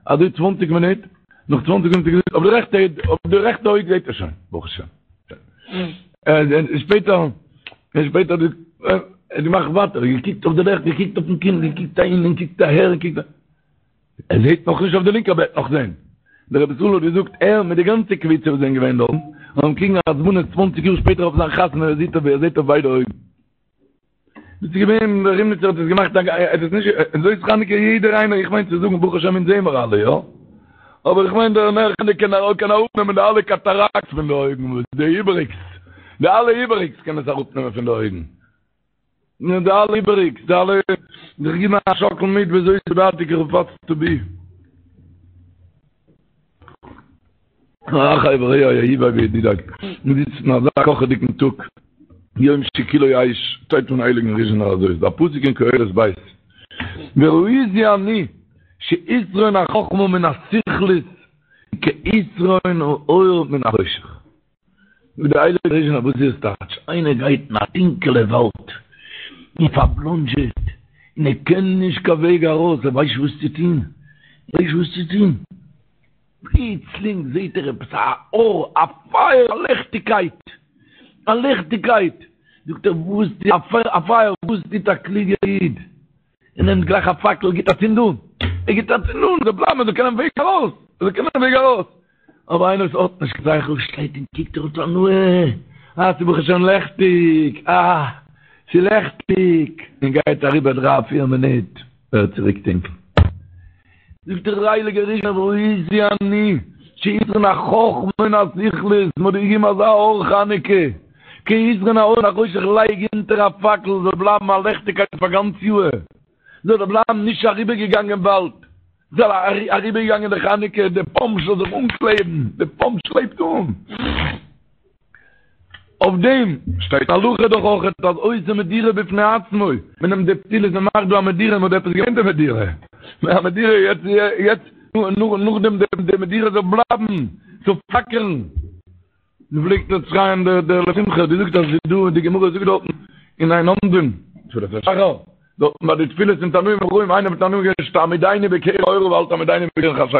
אזוי צוואנציג מינוט, נאך צוואנציג מינוט האט ער געזאגט, אויף די רעכטע, אויף די רעכטע אויג זעט ער שוין, ברוך השם. און שפעטער, און שפעטער האט ער געמאכט ווייטער, געקוקט אויף די לעכט, געקוקט אויפן קינד, געקוקט אהין און געקוקט אהער, און געקוקט. ער זעהט נאך נישט אויף די לינקע אבער ער וועט נאך זעהן. דער רבי ישראל האט געזאגט ער מיט די גאנצע קבוצה וואס זענען געווען דארטן האבן קריגן א הזמנה צוואנציג יאר שפעטער אויף זיין חתונה ער זעהט אויף ער זעהט אויף ביידע אויגן. דאס איז געווען דער רימניצער האט עס געמאכט א ער האט עס נישט זאת חנוכה יעדער איינער איך מיין צו זאגן ברוך השם אונז זעהן מיר אלע יא אבער איך מיין דער נר חנוכה קען קען אראפנעמען די אלע קאטאראקטס פון די אויגן וואס די איבעריגס די אלע איבעריגס קען עס אראפנעמען פון די אויגן. נו די אלע איבעריגס, די אלע, זיך גיבן א שאקל מיט וזאת ידעתי כי חפצת בי. אחי ורעי אהובי וידידי, מיר זיצן אין אזא קאכעדיגן טאג, יום שכולו אש, שטייט פון הייליגן ריזשינער אזוי איז דא א פסוק אין קהלת ב', וראיתי אני שיתרון החכמה מן הסכלות כיתרון האור מן החושך. זאגט דער הייליגער ריזשינער וואס איז עס טייטש? איינער גייט אין א טונקעלע וואלד און פארבלאנדזשעט און ער קען נישט קיין וועג ארויס, ער ווייסט נישט וואס צו טון, ער ווייסט נישט וואס צו טון, פלוצלינג זעט ער עפעס א אור, א פייער, א ליכטיגקייט, א ליכטיגקייט, זאגט ער וואס טוט א פייער, וואס טוט א קלוגער איד? ער נעמט גלייך א פאקל, גיט א צינד אן, ער גיט א צינד אן, זאל בלייבן, ער זאל קענען וועג ארויס, ער זאל קענען וועג ארויס. אבער איינער וואס האט נישט קיין שכל שטייט און קוקט ער האט הנאה, אה ס'איז ברוך השם לעכטיג, אה ס'איז לעכטיג, און גייט אריבער דריי פיר מינוט. ווערט צוריק טונקל. זאגט דער הייליגער ריזשינער וראיתי אני שיתרון החכמה מן הסכלות, מ'האט דיר געגעבן אזא אור חנוכה, כיתרון האור מן החושך לייג אונטער א פאקל זאל בלייבן א לעכטיגקייט פאר גאנץ יאהר, זאל ער בלייבן נישט אריבערגעגאנגען באלד, זאל אריבערגעגאנגען די חנוכה, די פאמפ זאל זיך אנקלעבן, די פאמפ שלעפט אן. אויף דעם שטייט הלכה דאך אויך אז עושה מדורה בפני עצמו, מען נעמט די פתילות מען מאכט דא א מדורה, מען האט עפעס געמיינט די מדורה, א מדורה יעצט יעצט נאכדעם די מדורה זאל בלייבן, זאל פלאקערן, מען פלעגט דאס שרייען דער דער לשמחה, דו זאגסט אז ס'איז דא די גמרא זאגט דארטן אין אין עומדין, תפילת השחר. דארטן ביי די תפילות פון תנאים ואמוראים, איינער פון תנאים געווען שתעמידני בקרן אורה ואל תעמידני בקרן חשכה.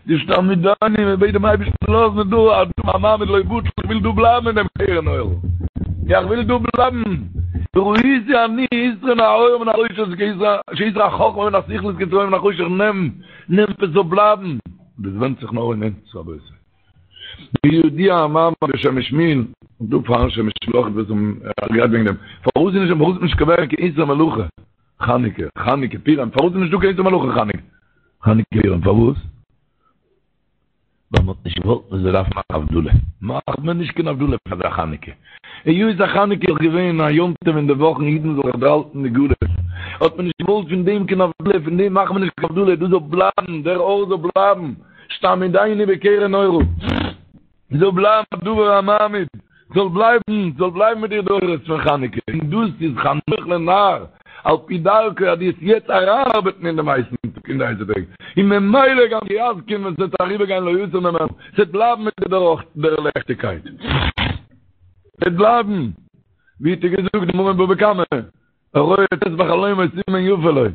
די שתעמידני, מען בעט דעם אייבערשטן לאז מיר דא א דא א מעמד לא יבוטל, איך וויל דא בלייבן אין דעם קרן אורה. איך וויל דא בלייבן. וראיתי אני יתרון האור מן החושך שיתרון החכמה מן הסכלות כיתרון האור מן החושך נעם, נעם עס זאל בלייבן. דאס ווענדט זיך נאר אין אונז רבותי. בידוע המאמר בשם משמואל, און דא פארן שם משמואל אויך וואס האבן גערעדט וועגן דעם, פארוואס איז נישט פארוואס איז נישט געווען קיין איסור מלאכה חנוכה, חנוכה פורים, פארוואס איז נישט דא קיין איסור מלאכה חנוכה, חנוכה פורים, פארוואס? ווייל מען האט נישט געוואלט מען זאל דארפן מאכן הבדלה, מאכט מען נישט קיין הבדלה פאר די חנוכה, היות אז חנוכה איז געווען א יום טוב אין די וואכן אידן זאלן זיך דערהאלטן די גלות, האט מען נישט געוואלט פון דעם קיין הבדלה, פון דעם מאכט מען נישט קיין הבדלה, דאס זאל בלייבן, דער אור זאל בלייבן. שתעמידני בקרן אורה, זאל בלייבן א דבר המעמיד, זאל בלייבן, זאל בלייבן מיט דיר די אורות פון חנוכה, און דאס איז חנוך לנער, על פי דרכו אז דו וועסט יעצט אריינארבעטן אין דעם הייסן טאג, אין די הייסע טעג, און ממילא גם כי יזקין ווען ס'וועט אריבערגיין לא יסור ממנו, ס'וועט בלייבן מיט דיר דער לעכטיגקייט, ס'וועט בלייבן, ווי האט ער געזאגט די גמרא אין בבא קמא, הרואה ט' בחלומו סימן יפה לו.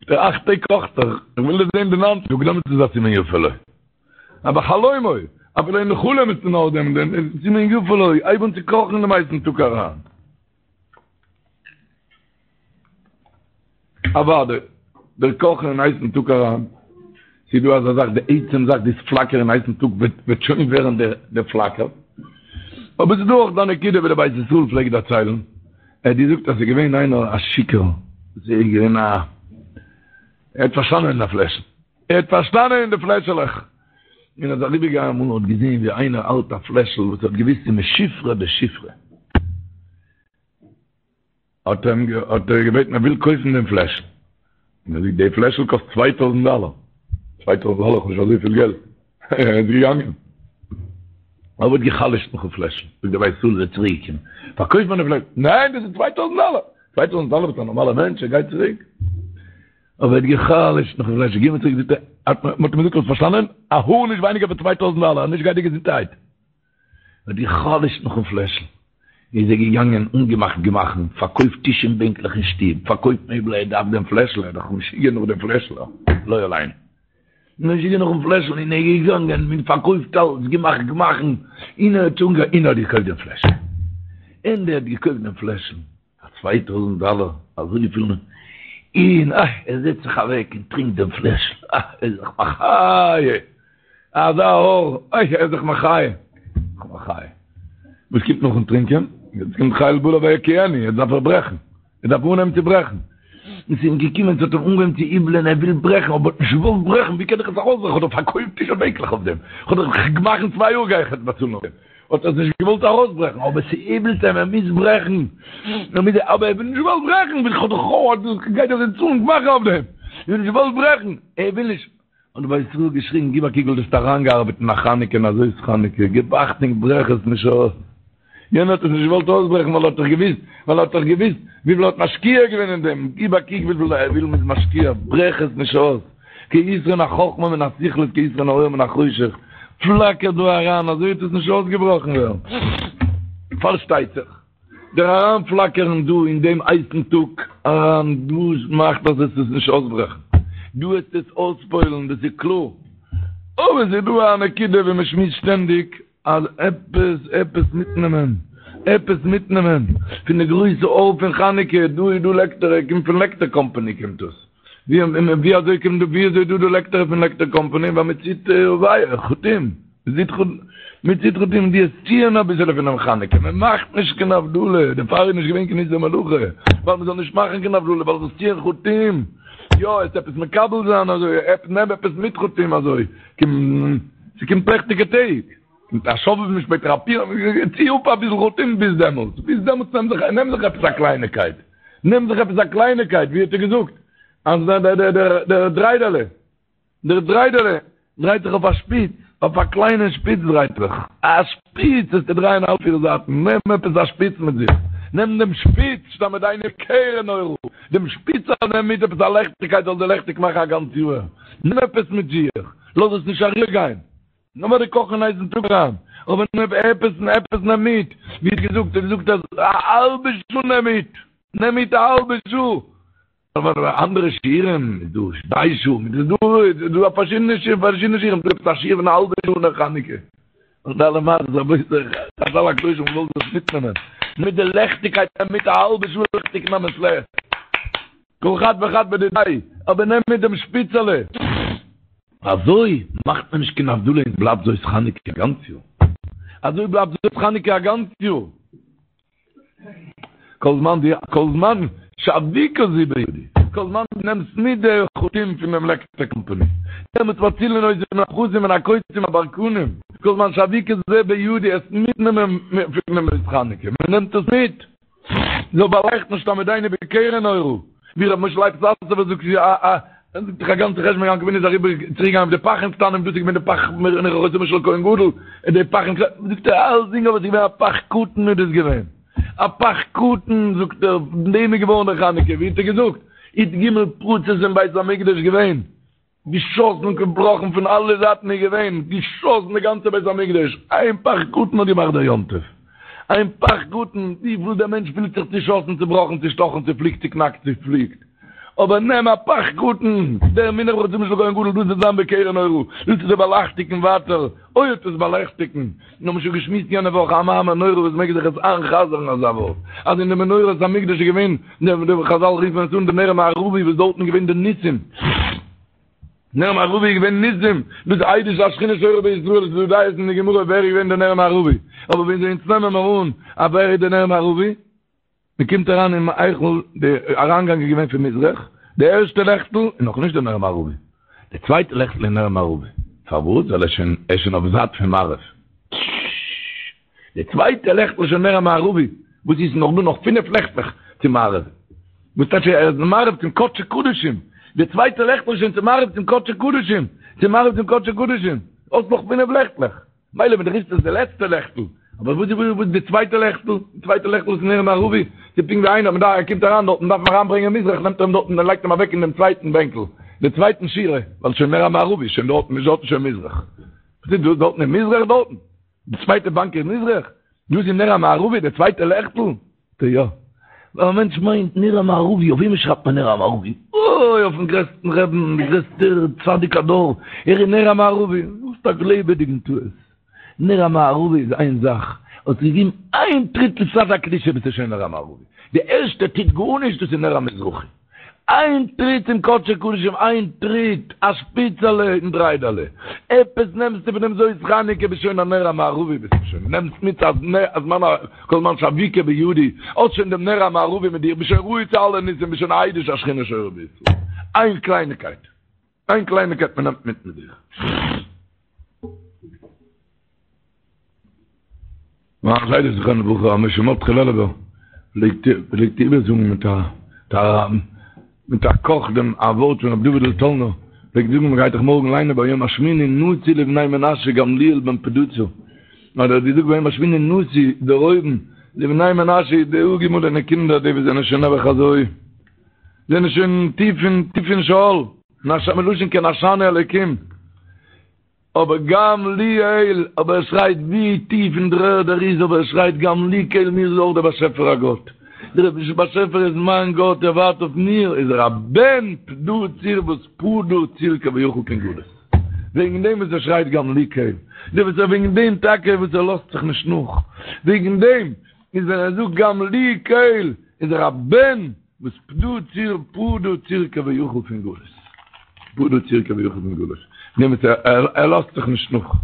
די אכט טעג קאכט זיך, איך וויל דאס זען די ניינטע טאג, דעמאלטס איז א סימן יפה לו. א בחלומו, אפילו אין חלום איז נאר דעם, דעם סימן יפה לו, הייב אן צו קאכן אין דעם הייסן טאג אריין. אוודאי, דער קאכן אין הייסן טאג אריין, ס'איז דא אזא זאך, די עצם זאך דאס פלאקערן אין הייסן טאג וועט שוין ווערן דער פלאקער. אבער ס'איז דא אויך די נקודה ווי דער בית ישראל פלעגט דערציילן, ער האט געזאגט אז ס'איז געווען איינער א שיכור, ס'איז געווען א, ער האט פארשטאנען אין א פלעשל, ער האט פארשטאנען אין די פלעשעלעך, און ער איז אריבערגעגאנגען אמאל און האט געזען ווי איינער האלט א פלעשל וואס ער האט געוואוסט ס'איז משופרא דשופרא, האט ער אים האט ער געבעטן ער וויל קויפן דעם פלעשל, און ער זאגט די פלעשל קאסט צוויי טויזנט דאלער, צוויי טויזנט דאלער איך האב נישט אזויפיל געלט, ער איז געגאנגען, אבער האט גע'חלש'ט נאכן פלעשל, זאגט דער בית ישראל איז ער צוריק געקומען, פארקויף מיר די פלעשל, ניין דאס איז צוויי טויזנט דאלער, צוויי טויזנט דאלער ביסט א נארמאלער מענטש, ער גייט צוריק, אבער ער האט גע'חלש'ט נאכן פלעשל, גיב מיר צוריק, זאגט ער, מען האט אים געזאגט האסט פארשטאנען, א האר נישט ווייניגער פון צוויי טויזנט דאלער, נישט גיי דיר געזונטערהייט. האט גע'חלש'ט נאכן פלעשל, איז ער געגאנגען אנגעמאכט גמח'ן, פארקויפט טיש און בענקלעך אין שטוב, פארקויפט מעבל, ער דארף דעם פלעשל, ער איז דאך משוגע נאך דעם פלעשל, לא עלינו, משוגע נאכן פלעשל, און ער איז געגאנגען און פארקויפט אלץ, געמאכט גמח'ן, און ער האט אנגע און ער האט געקויפט דעם פלעשל, און ער האט געקויפט דעם פלעשל. פאר צוויי טויזנט דאלער, אזויפיל, און אה, ער זעצט זיך אוועק און טרינקט דעם פלעשל, אה, ער איז זיך מחיה, אזא אור, אוי, ער איז זיך מחיה, זיך מחיה. וואס קומט נאכן טרינקען? יעצט קומט חיל בלע ויקיאנו, יעצט דארף ער ברעכן, ער דארף אנהייבן צו ברעכן. און ס'איז אים געקומען, ס'האט אים אנגעהויבן צו איבלען, ער וויל ברעכן, אבער האט נישט געוואלט ברעכן, ווי קען איך עס ארויסברעכן, כ'האב דאך פארקויפט טיש און בענקלעך אויף דעם, כ'האב דאך גמח'ן צוויי יאר גיי איך יעצט באצאלן אויף דעם. האט ער עס נישט געוואלט ארויסברעכן, אבער ס'איבלט אים, ער מוז ברעכן, ער מוז, אבער ער וויל נישט געוואלט ברעכן, וויל כ'האב דאך כ'האב, גייט דאך יעצט צאלן גמח אויף דעם, ער האט נישט געוואלט ברעכן, ער וויל נישט, האט דער בית ישראל געשריגן, גיב א קוק וויפיל דו האסט אריינגעארבעט אין א חנוכה און אזוי איז חנוכה, גיב אכטונג ברעך עס נישט אויס, יענער האט עס נישט געוואלט אויסברעכן ווייל ער האט דאך געוואוסט, ווייל ער האט דאך געוואוסט וויפיל ער האט משקיע געווען אין דעם, גיב א קוק וויפיל ער וויל מ'איז משקיע, ברעך עס נישט אויס. כיתרון החכמה מן הסכלות כיתרון האור מן החושך, פלאקער דא אריין אזוי וועט עס נישט אויסגעבראכן ווערן. פארשטייט זיך, דער אריינפלאקערן דא אין דעם הייסן טאג אריין דאס מאכט אז עס איז נישט אויסברעכן, דא וועט עס אויספועלן דאס איז קלאר, אבער עס איז דא א נקודה ווי מען שמועסט שטענדיג אז עפעס עפעס מיטנעמען, עפעס מיטנעמען פון די גרויסע אור פון חנוכה, דא איז דא לעקטער, ער קומט פון לעקטער קאמפאני קומט דאס, ווי אזוי קומט דא, ווי אזוי איז דא די לעקטער פון לעקטער קאמפאני, ווייל מען ציט ווייער, חוטים, מען ציט חוטים, מען ציט חוטים, די עס ציען אביסעלע פונעם חנוכה, מען מאכט נישט קיין הבדלה, דערפאר איז נישט געווען קיין איסור מלאכה, ווייל מען זאל נישט מאכן קיין הבדלה, ווייל זאלסט ציען חוטים. יא, עס עפעס מקבל זיין אזוי, נעם עפעס מיט חטים אזוי, ס'קומט לעכטיגע טעג, קומט א שובבים שפעטער א פורים, צי אפ אביסל חטים ביז דעמאלטס, ביז דעמאלטס נעם זיך, נעם זיך עפעס א קלייניקייט, נעם זיך עפעס א קלייניקייט, ווי האט ער געזאגט, אז דער דריידעלע. דער דריידעלע דרייט זיך אויף א שפיץ, אויף א קליינע שפיץ דרייט זיך, א שפיץ וועסטו דרייען אלע פיר זייטן, נעם עפעס א שפיץ מיט זיך, נעם דעם שפיץ, שתעמידנו בקרן אורה, דעם שפיץ נעם מיט עפעס א לעכטיגקייט זאל דיר לעכטיג מאכן א גאנץ יאהר, נעם עפעס מיט זיך, לאז עס נישט אריבער גיין, נאר די קאכן אין הייסן טאג אריין, אבער נעם עפעס, עפעס נעם מיט, ווי האט געזאגט, ער האט געזאגט אז א האלבע שעה נעם מיט, נעם מיט א האלבע שעה. אבער אנדערע שיעורים איז דא שתי שעה, איז דא איז דא פארשידענע שיעורים, פארשידענע שיעורים, דא עפעס א שיעור פון א האלבע שעה נר חנוכה. און אלע מעשות רבותי, חזל הקדושים וואלט דאס מיטנעמען, מיט די לעכטיגקייט מיט א האלבע שעה לעכטיג נעם עס לעכט. כל חד וחד בדידיה, אבער נעם מיט דעם שפיצעלע. אזוי מאכט מען נישט קיין הבדלה און בלייבט זאת חנוכה א גאנץ יאר. אזוי בלייבט זאת חנוכה א גאנץ יאר. כל זמן די, כל זמן שאבוקה זו בידי, כל זמן דו נעמסט מיט די חוטים פון דעם לעקטער קאמפאני, דעמאלטס מצילין אותי מן הפחתים מן הקוצים הברקנים, כל זמן שאבוקה זו בידי, עס מיטנעמען פון דעם זאת חנוכה, מען נעמט עס מיט, זאל באלייכטן שתעמידנו בקרן אורה, ווי ר' משה לייב סאסובער זאגט א א ער זאגט דאך א גאנצע חשבון יעקב אבינו איז אריבער צוריק געגאנגען אויף די פכים קטנים דאס איז געווען די פך מנח חותמו של כהן גדול און די פכים קטנים זאגט ער אלסדינג אבער עס איז געווען א פך קטן איז דאס געווען א פך קטן זאגט ער פון דעם איז געווארן די חנוכה ווי האט ער געזאגט י"ג פרצות אין בית המקדש געווען געשאסן און געבראכן פון אלע זייטן איז געווען געשאסן די גאנצע בית המקדש איין פך קטן האט געמאכט דער יום טוב איין פך קטן וויפיל דער מענטש פילט זיך צושאסן צובראכן צושטאכן צופליקט צוקנאקט צופליקט אבער נעם א פך קטן, דער מונח בחותמו של כהן גדול, דאס וועט זיין בקרן אורה, דאס וועט דיר באלייכטיגן ווייטער, אוי וועט עס באלייכטיגן, מיר האבן שוין געשמועסט יענע וואך א מאמר נורא וואס מעג זיך עס איינ'חזר'ן אזא ווארט, אז אין די מנורת המקדש איז געווען, די חזל רופן עס אן די נר המערבי וואס דארטן איז געווען די ניסים, נר מערבי איז געווען ניסים, דאס עדות שהשכינה שורה בישראל, עס איז דא דעות אין די גמרא ווער איז געווען די נר מערבי, אבער ווען אונז נעמען מיר אן אז ווער איז די נר מערבי? מען קומט אריין אין היכל, די אריינגאנג איז געווען פון מזרח, די ערשטע לעכטל איז נאך נישט די נר מערבי, די צווייטע לעכטל איז נר מערבי, פארוואס? ווייל ער איז שוין ער איז שוין אויף זייט פון מערב, די צווייטע לעכטל איז שוין נר המערבי, וואס איז נאך דא נאך פינף לעכטלעך צו מערב, וואס טייטש ער איז מערב צום קדשי קדשים, די צווייטע לעכטל איז שוין צו מערב צום קדשי קדשים, צו מערב צום קדשי קדשים, האסט נאך פינף לעכטלעך. מילא ווען דו רופסט עס די לעצטע לעכטל, אבער וואס איז וואס די צווייטע לעכטל? די צווייטע לעכטל איז נר מערבי, ס'איז פונקט ווי איינער, מ'דארף, ער קומט אריין דארטן, דארף מען אריינברענגען מזרח, נעמט ער אים דארטן און לייגט אים אוועק אין דעם צווייטן בענקל, די צווייטן שורה, ווייל שוין נר המערבי, שוין דארטן, איז דארטן שוין מזרח. וואס איז דאס דארטן אין מזרח דארטן? די צווייטע באנק איז מזרח? דאס איז נר המערבי, די צווייטע לעכטל? זאגט ער יא. ווייל א מענטש מיינט נר המערבי, אויף וועמען שרייבט מען נר המערבי? אוי, אויפן גרעסטן רעבן, די גרעסטע צדיק הדור, ער איז נר המערבי. האסט א לעבעדיגן טעות. נר המערבי איז איין זאך, האסט געגעבן איין טריט לצד הקדושה ביסטו שוין נר המערבי. די ערשטע טוט גארנישט דאס איז נר המזרחי. איין טריט צום קדשי קדשים, איין טריט, א שפיצעלע אין דריידעלע, עפעס נעמסטו פון דעם זאת חנוכה, ביסט שוין א נר המערבי ביסטו שוין, נעמסט מיט א זמן א כל זמן שאבוקה בידי, האסט שוין דעם נר המערבי מיט דיר, ביסט שוין ראוי צו אלע ניסים, ביסט שוין א עדות שהשכינה שורה בישראל. איין קלייניקייט, איין קלייניקייט מען נעמט מיט מיט זיך. מיין זיידע זכרונו לברכה ר' משה מרדכי לעלובער פלעגט פלעגט איבערזאגן מיט א מיט א קאך דעם א ווארט פון רבי דוד'ל טאלנער פלעגט זאגן מ'גייט דאך מארגן ליינען ביום השמיני נשיא לבני מנשה גמליאל בן פדהצור האט ער געזאגט ביום השמיני נשיא דערהויבן לבני מנשה די אפגעמאלענע קינדער די וואס זענען שוין נעבעך אזוי זענען שוין טיף אין טיף אין שאול מלשון כי נשני אלוקים אבער גם לי אל, אבער ער שרייט ווי טיף אין דר'ערד ער איז, אבער ער שרייט גם לי קל מיר איז אויך דער באשעפער א גאט, דער באשעפער איז מיין גאט, ער ווארט אויף מיר, איז ער א בן פדהצור וואס פדה צור כביכול פון גלות, וועגן דעם וואס ער שרייט גם לי קל, דער וואס ער וועגן דעם טאקע וואס ער לאזט זיך נישט נאך, וועגן דעם איז ווען ער זאגט גם לי קל איז ער א בן וואס פדה צור פדה צור כביכול פון גלות. פדה צור כביכול פון גלות. נעם עס ער לאזט זיך נישט נאך.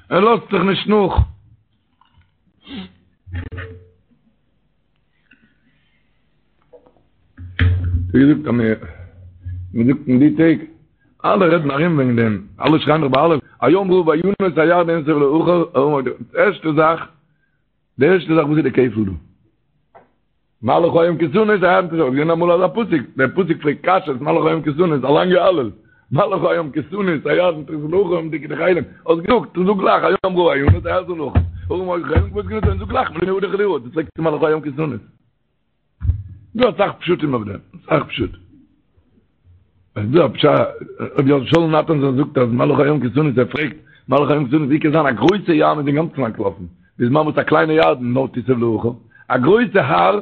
ער לאזט זיך נישט נאך. ווי געזאגט אז מען זאגט אין די טעג, אלע רעדן ארום וועגן דעם, אלע שרייען דאך ביי אלע, הים ראה וינוס הירדן נסב לאחור, די ערשטע זאך, די ערשטע זאך וואס איז די כפל דא? מה לך הים כי תנוס הירדן תסוב, געווען אמאל אזא פסוק, דער פסוק פרעגט קשיות, מה לך הים כי תנוס, א לאנגע הלל, מה לך הים כי תנוס הירדן תסוב לאחור, תרקדו כאילים, האסט געזאגט, זאג גלייך, הים ראה וינוס הירדן לאחור, ההרים היו כאילים גבעות כנתון, זאג גלייך, מלפני האדון חילי ארץ, פרעגסטו מה לך הים כי תנוס. דא אסאך פשטים אויף דעם, אסאך פשט. עס איז דא א פשט, רבי שאול נאטאנזאהן זאגט אז מה לך הים כי תנוס, ער פרעגט, מה לך הים כי תנוס, ווי קען זיין א גרויסע ים איז אינגאנצן אנטלאפן, בזמן וואס א קליינע ירדן נאר תסוב לאחור, א גרויסע הר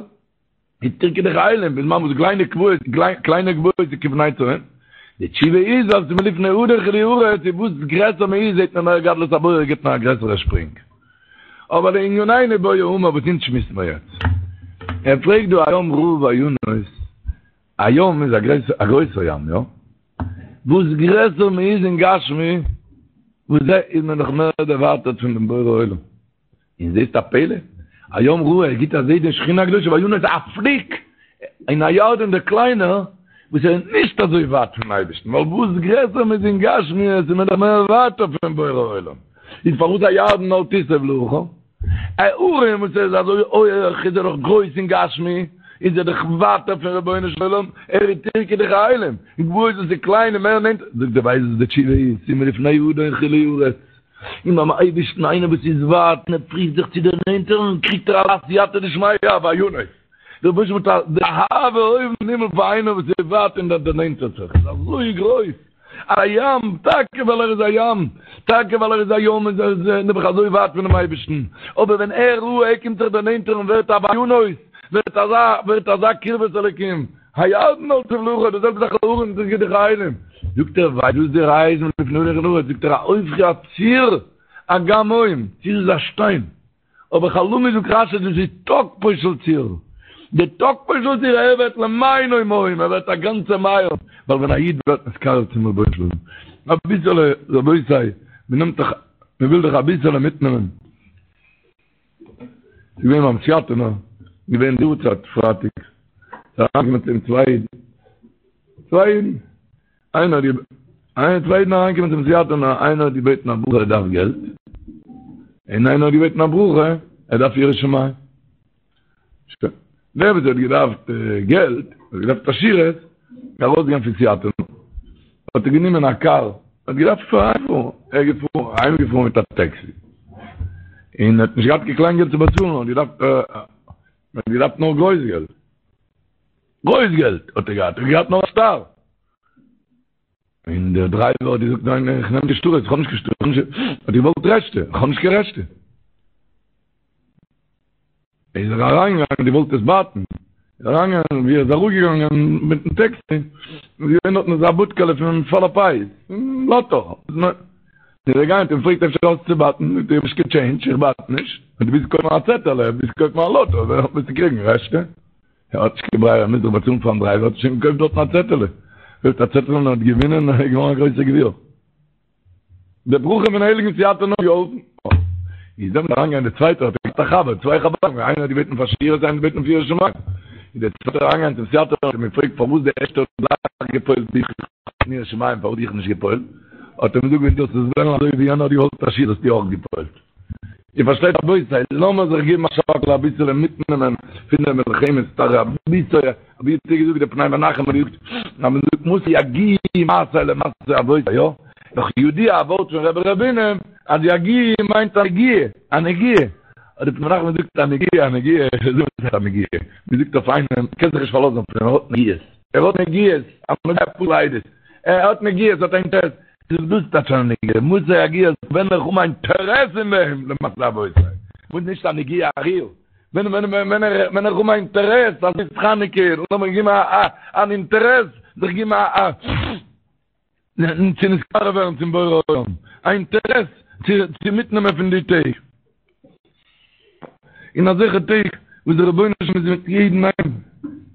איז תרקדו כאילים, בזמן וואס קליינע גבעות, קליינע גבעות איז כבני צאן. די תשובה איז אז מלפני האדון חילי ארץ, און וואס גרעסער מען איז זעט מען מער גדלות הבורא גיבט מען א גרעסערע שפרינג. אבער לענינינו בעי אמר וואס אונז שמועסן מיר יעצט. ער פרעגט דא הים ראה וינוס, א ים איז א גרויסער ים, יא? וואס גרעסער מען איז אין גשמי, וואס דער איז מען דאך מער דערווייטערט פון דעם בורא עולם. און זעסט א פלא? הים ראה, ער גיט א זעה די שכינה הקדושה וינוס א פליק אין א ירדן דער קליינער, וואס ער איז נישט אזוי ווייט פון אייבערשטן, ווייל וואס גרעסער מען איז אין גשמיות איז מען דאך מער ווייטער פון בורא עולם. איז פארוואס הירדן נאר תסוב לאחור? א הרים וואס ער איז אזוי הויעך איז ער דאך גרויס אין גשמי, איז ער דאך ווייטער פון רבונו של עולם, ער איז תרקדו כאילים, און גבעות וואס איז קליין און מער נענטער, זאגט ער ווייסט וואס די תשובה איז, ס'איז מלפני האדון חילי ארץ, און ביים אייבערשטן איינער וואס איז ווייט און ער פריווט זיך צו דערנענטערן קריגט ער א סייעתא דשמיא וינוס, דער רבונו של עולם האט די אהבה אויבן אין הימל פאר איינער וואס איז ווייט און דערנענטערט זיך איז אזוי גרויס. א ים, טאקע ווייל ער איז א ים, טאקע ווייל ער איז א ים איז ער נעבעך אזוי ווייט פונעם אייבערשטן, אבער ווען ער ראה ער קומט זיך דערנענטערן ווערט א וינוס, ווערט אזא, ווערט אזא קרבת אלוקים, הירדן נאר תסוב לאחור, די זעלבע זאך ההרים תרקדו כאילים, זאגט ער ווייסט וואס די ראיה איז מלפני האדון חילי ארץ, זאגט ער ההופכי הצור אגם מים, צור איז א שטיין, אבער חלמי זאגט רשי דאס איז תוקפו של צור, די תוקפו של צור ער ווערט למעינו מים, ער ווערט א גאנצע מעיין, ווייל ווען א איד ווערט נתקרב צום רבונו של עולם, אביסעלע רבותי, מען נעמט דאך, מען וויל דאך אביסעלע מיטנעמען, ס'איז געווען ביים סיאטינער, געווען די יארצייט פרייטאג, ס'איז אריינגעקומען צו אים צוויי אידן, צוויי אידן, איינער האט געבעטן, איינער צוויי אידן אריינגעקומען צום סיאטינער, איינער האט געבעטן א ברכה ער דארף געלט, און איינער האט געבעטן א ברכה ער דארף יראת שמים. שוין. דער וואס האט געדארפט געלט, האט געדארפט עשירות, איז ארויסגעגאנגען פון סיאטינער, האט ער גענומען א קאר, האט געדארפט אהיימפארן, ער איז געפארן, אהיימגעפארן מיט א טעקסי, און האט נישט געהאט קיין קליין געלט צו באצאלן, האט געדארפט, האט געדארפט נאר גרויס געלט. גרויס געלט האט ער געהאט, ער האט געהאט נאר א שטר. און דער דרייווער האט געזאגט ניין איך נעם די שטרות, איך האב נישט קיין שטרות, האט געוואלט רעשטע, איך האב נישט קיין רעשטע. איז ער אריינגעגאנגען, געוואלט עס בייטן, איז אריינגעגאנגען, ווי ער איז אראפגעגאנגען מיטן טעקסי, איז געווען דארטן אזא בודקעלע פון מפעל הפיס, פון לאטא. איז ער געגאנגען האט אים געפרעגט אפשר האסט צו בייטן, זאגט ער איך האב נישט קיין טשעינדזש, איך בייט נישט, דו ווילסט קויפן א צעטעלע, ווילסט קויפן א לאטא, וועסטו קריגן רעשטע. ער האט נישט קיין ברירה, ער מוז דאך באצאלן פארן דרייווער, האט ער שוין געקויפט דארטן א צעטעלע. קויפט א צעטעלע און האט געווינען און ער איז געווארן א גרויסער גביר. די ברכה פון הייליגן סיאטינער האט געהאלפן. איז דעמאלט אריינגעגאנגען דער צווייטער, האט ער געהאט א חבר, צוויי חברים, איינער האט געבעטן פאר עשירות, איינער האט געבעטן פאר יראת שמים. איז דער צווייטער אריינגעגאנגען צום סיאטינער און האט אים געפרעגט פארוואס דער ערשטער האט גלייך געפועלט דיך אין יראת שמים, פארוואס דיך נישט געפועלט? האט ער אים געזאגט ווען דו זאלסט עס וועלן אזוי ווי יענער האט געוואלט עשירות וואלסטו אויך געפועלט. איר פארשטייט רבותי, לאמיר זיך געבן א שאקל אביסעלע מיטנעמען פון די מלחמת תרעב אביסעלע, ווי האט איר געזאגט דער פני מנחם האט געזאגט אז מען זאגט מתי יגיעו מעשי למעשי אבותי, יא? דאך ידוע א ווארט פון רבי ר' בונם אז יגיעו מיינט א נגיעה, א נגיעה, האט דער פני מנחם געזאגט א נגיעה, א נגיעה, וואס הייסט א נגיעה? מען זאגט אויף איינעם, מען קען זיך נישט פארלאזן אויף אים, ער האט נגיעות, ער האט נגיעות, א נוגע פסול עדות, ער האט נגיעות, האט א אינטערעס, זאגט דאס טייטש א נגיעה, מתי יגיעו ווען איך האב א אינטערעס אין דעם למעשי אבותי, וואס נישט א נגיעה א ריר, ווען ווען ווען ווען איך האב א אינטערעס אז ס'איז חנוכה, לאמיר געבן א א אן אינטערעס, זיך געבן א א צו נתקרב ווערן צום בורא עולם, א אינטערעס צו צו מיטנעמען פון די טעג. אין אזעלכע טעג וואס דער רבונו של עולם איז מיט יעדן איינעם,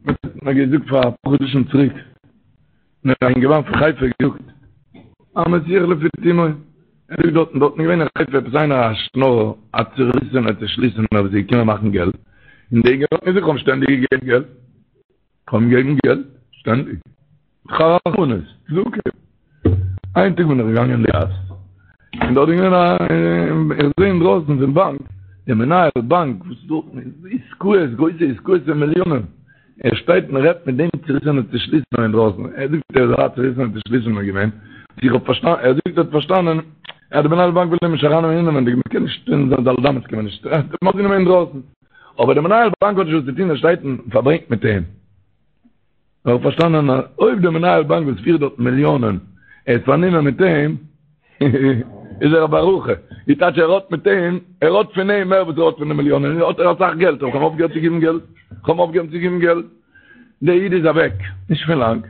האט מיר געזאגט פאר אפאר חדשים צוריק, מיר א אינגערמאן פון חיפה געזאגט, א מסיח לפי תומו, ער זאגט דארטן, דארטן איז געווען אין חיפה עפעס איינער א שנארער, א צוריסענער צושליסענער וואס איז געקומען מאכן געלט, און דער אינגערמאן האט געזאגט, איך האב אים שטענדיג געגעבן געלט, איך האב אים געגעבן געלט. שטענדיג. רחמנות, צדקה. איין טאג בין איך געגאנגען אין די גאס, און דארט איז געווען א, איך זעה אינדרויסן פון באנק, דער מנהל באנק וואס דארט איז עסקאות, גרויסע עסקאות פון מיליאנען, ער שטייט און רעדט מיט דעם צוריסענעם צושליסענעם אינדרויסן, ער זאגט ער איז א צוריסענער צושליסענער געווען, איך האב פארשטאנען, ער זאגט ער האט פארשטאנען אז דער מנהל באנק וויל אים נישט ארייננעמען אינעווענדיג, מען קען נישט אין זיין ד' אמות קען מען נישט, מען האט גענומען אינדרויסן, אבער דער מנהל באנק האט נישט וואס צו טון, ער שטייט און פארברענגט מיט אים. איך האב פארשטאנען אז אויב דער מנהל באנק וואס פירט דארט מיליאנען ער איז פארנומען מיט אים, איז ער א ברכה, די טייטש ער האט מיט אים, ער האט פון אים מער וואס ער האט פון די מיליאנען, האט ער אסאך געלט, איך האב אויפגעהערט צו געבן געלט, איך האב אויפגעהערט צו געבן געלט, דער איד איז אוועק, נישט פון לאנג,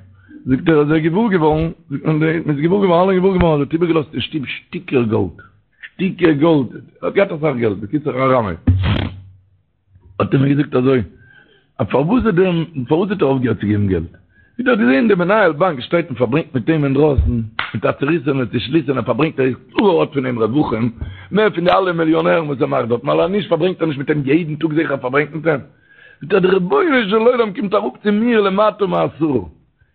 זאגט ער איז ער געוואר געווארן, זאגט מען מען איז געוואר געווארן, אלע געוואר געווארן אז ער האט איבערגעלאזט אין שטוב שטיקער גאלד, שטיקער גאלד, ער האט געהאט אסאך געלט, בקיצור א רמאי. האט ער מיר געזאגט אזוי, אז פארוואס האט דער, פארוואס האט ער אויפגעהערט צו געבן געלט? ווי ער האט געזען דער מנהל באנק שטייט און פארברענגט מיט אים אינדרויסן, מיט א צוריסענע צושליסענע פארברענגט ער איז קלאר ער האט פון אים רווחים, מער פון די אלע מיליאנערן וואס ער מאכט דארט, ווייל אז נישט פארברענגט ער נישט מיט אים יעדן טאג זיכער פארברענגט מיט אים. זאגט ער, דער רבונו של עולם קומט אראפ צו מיר למטה מעשרה.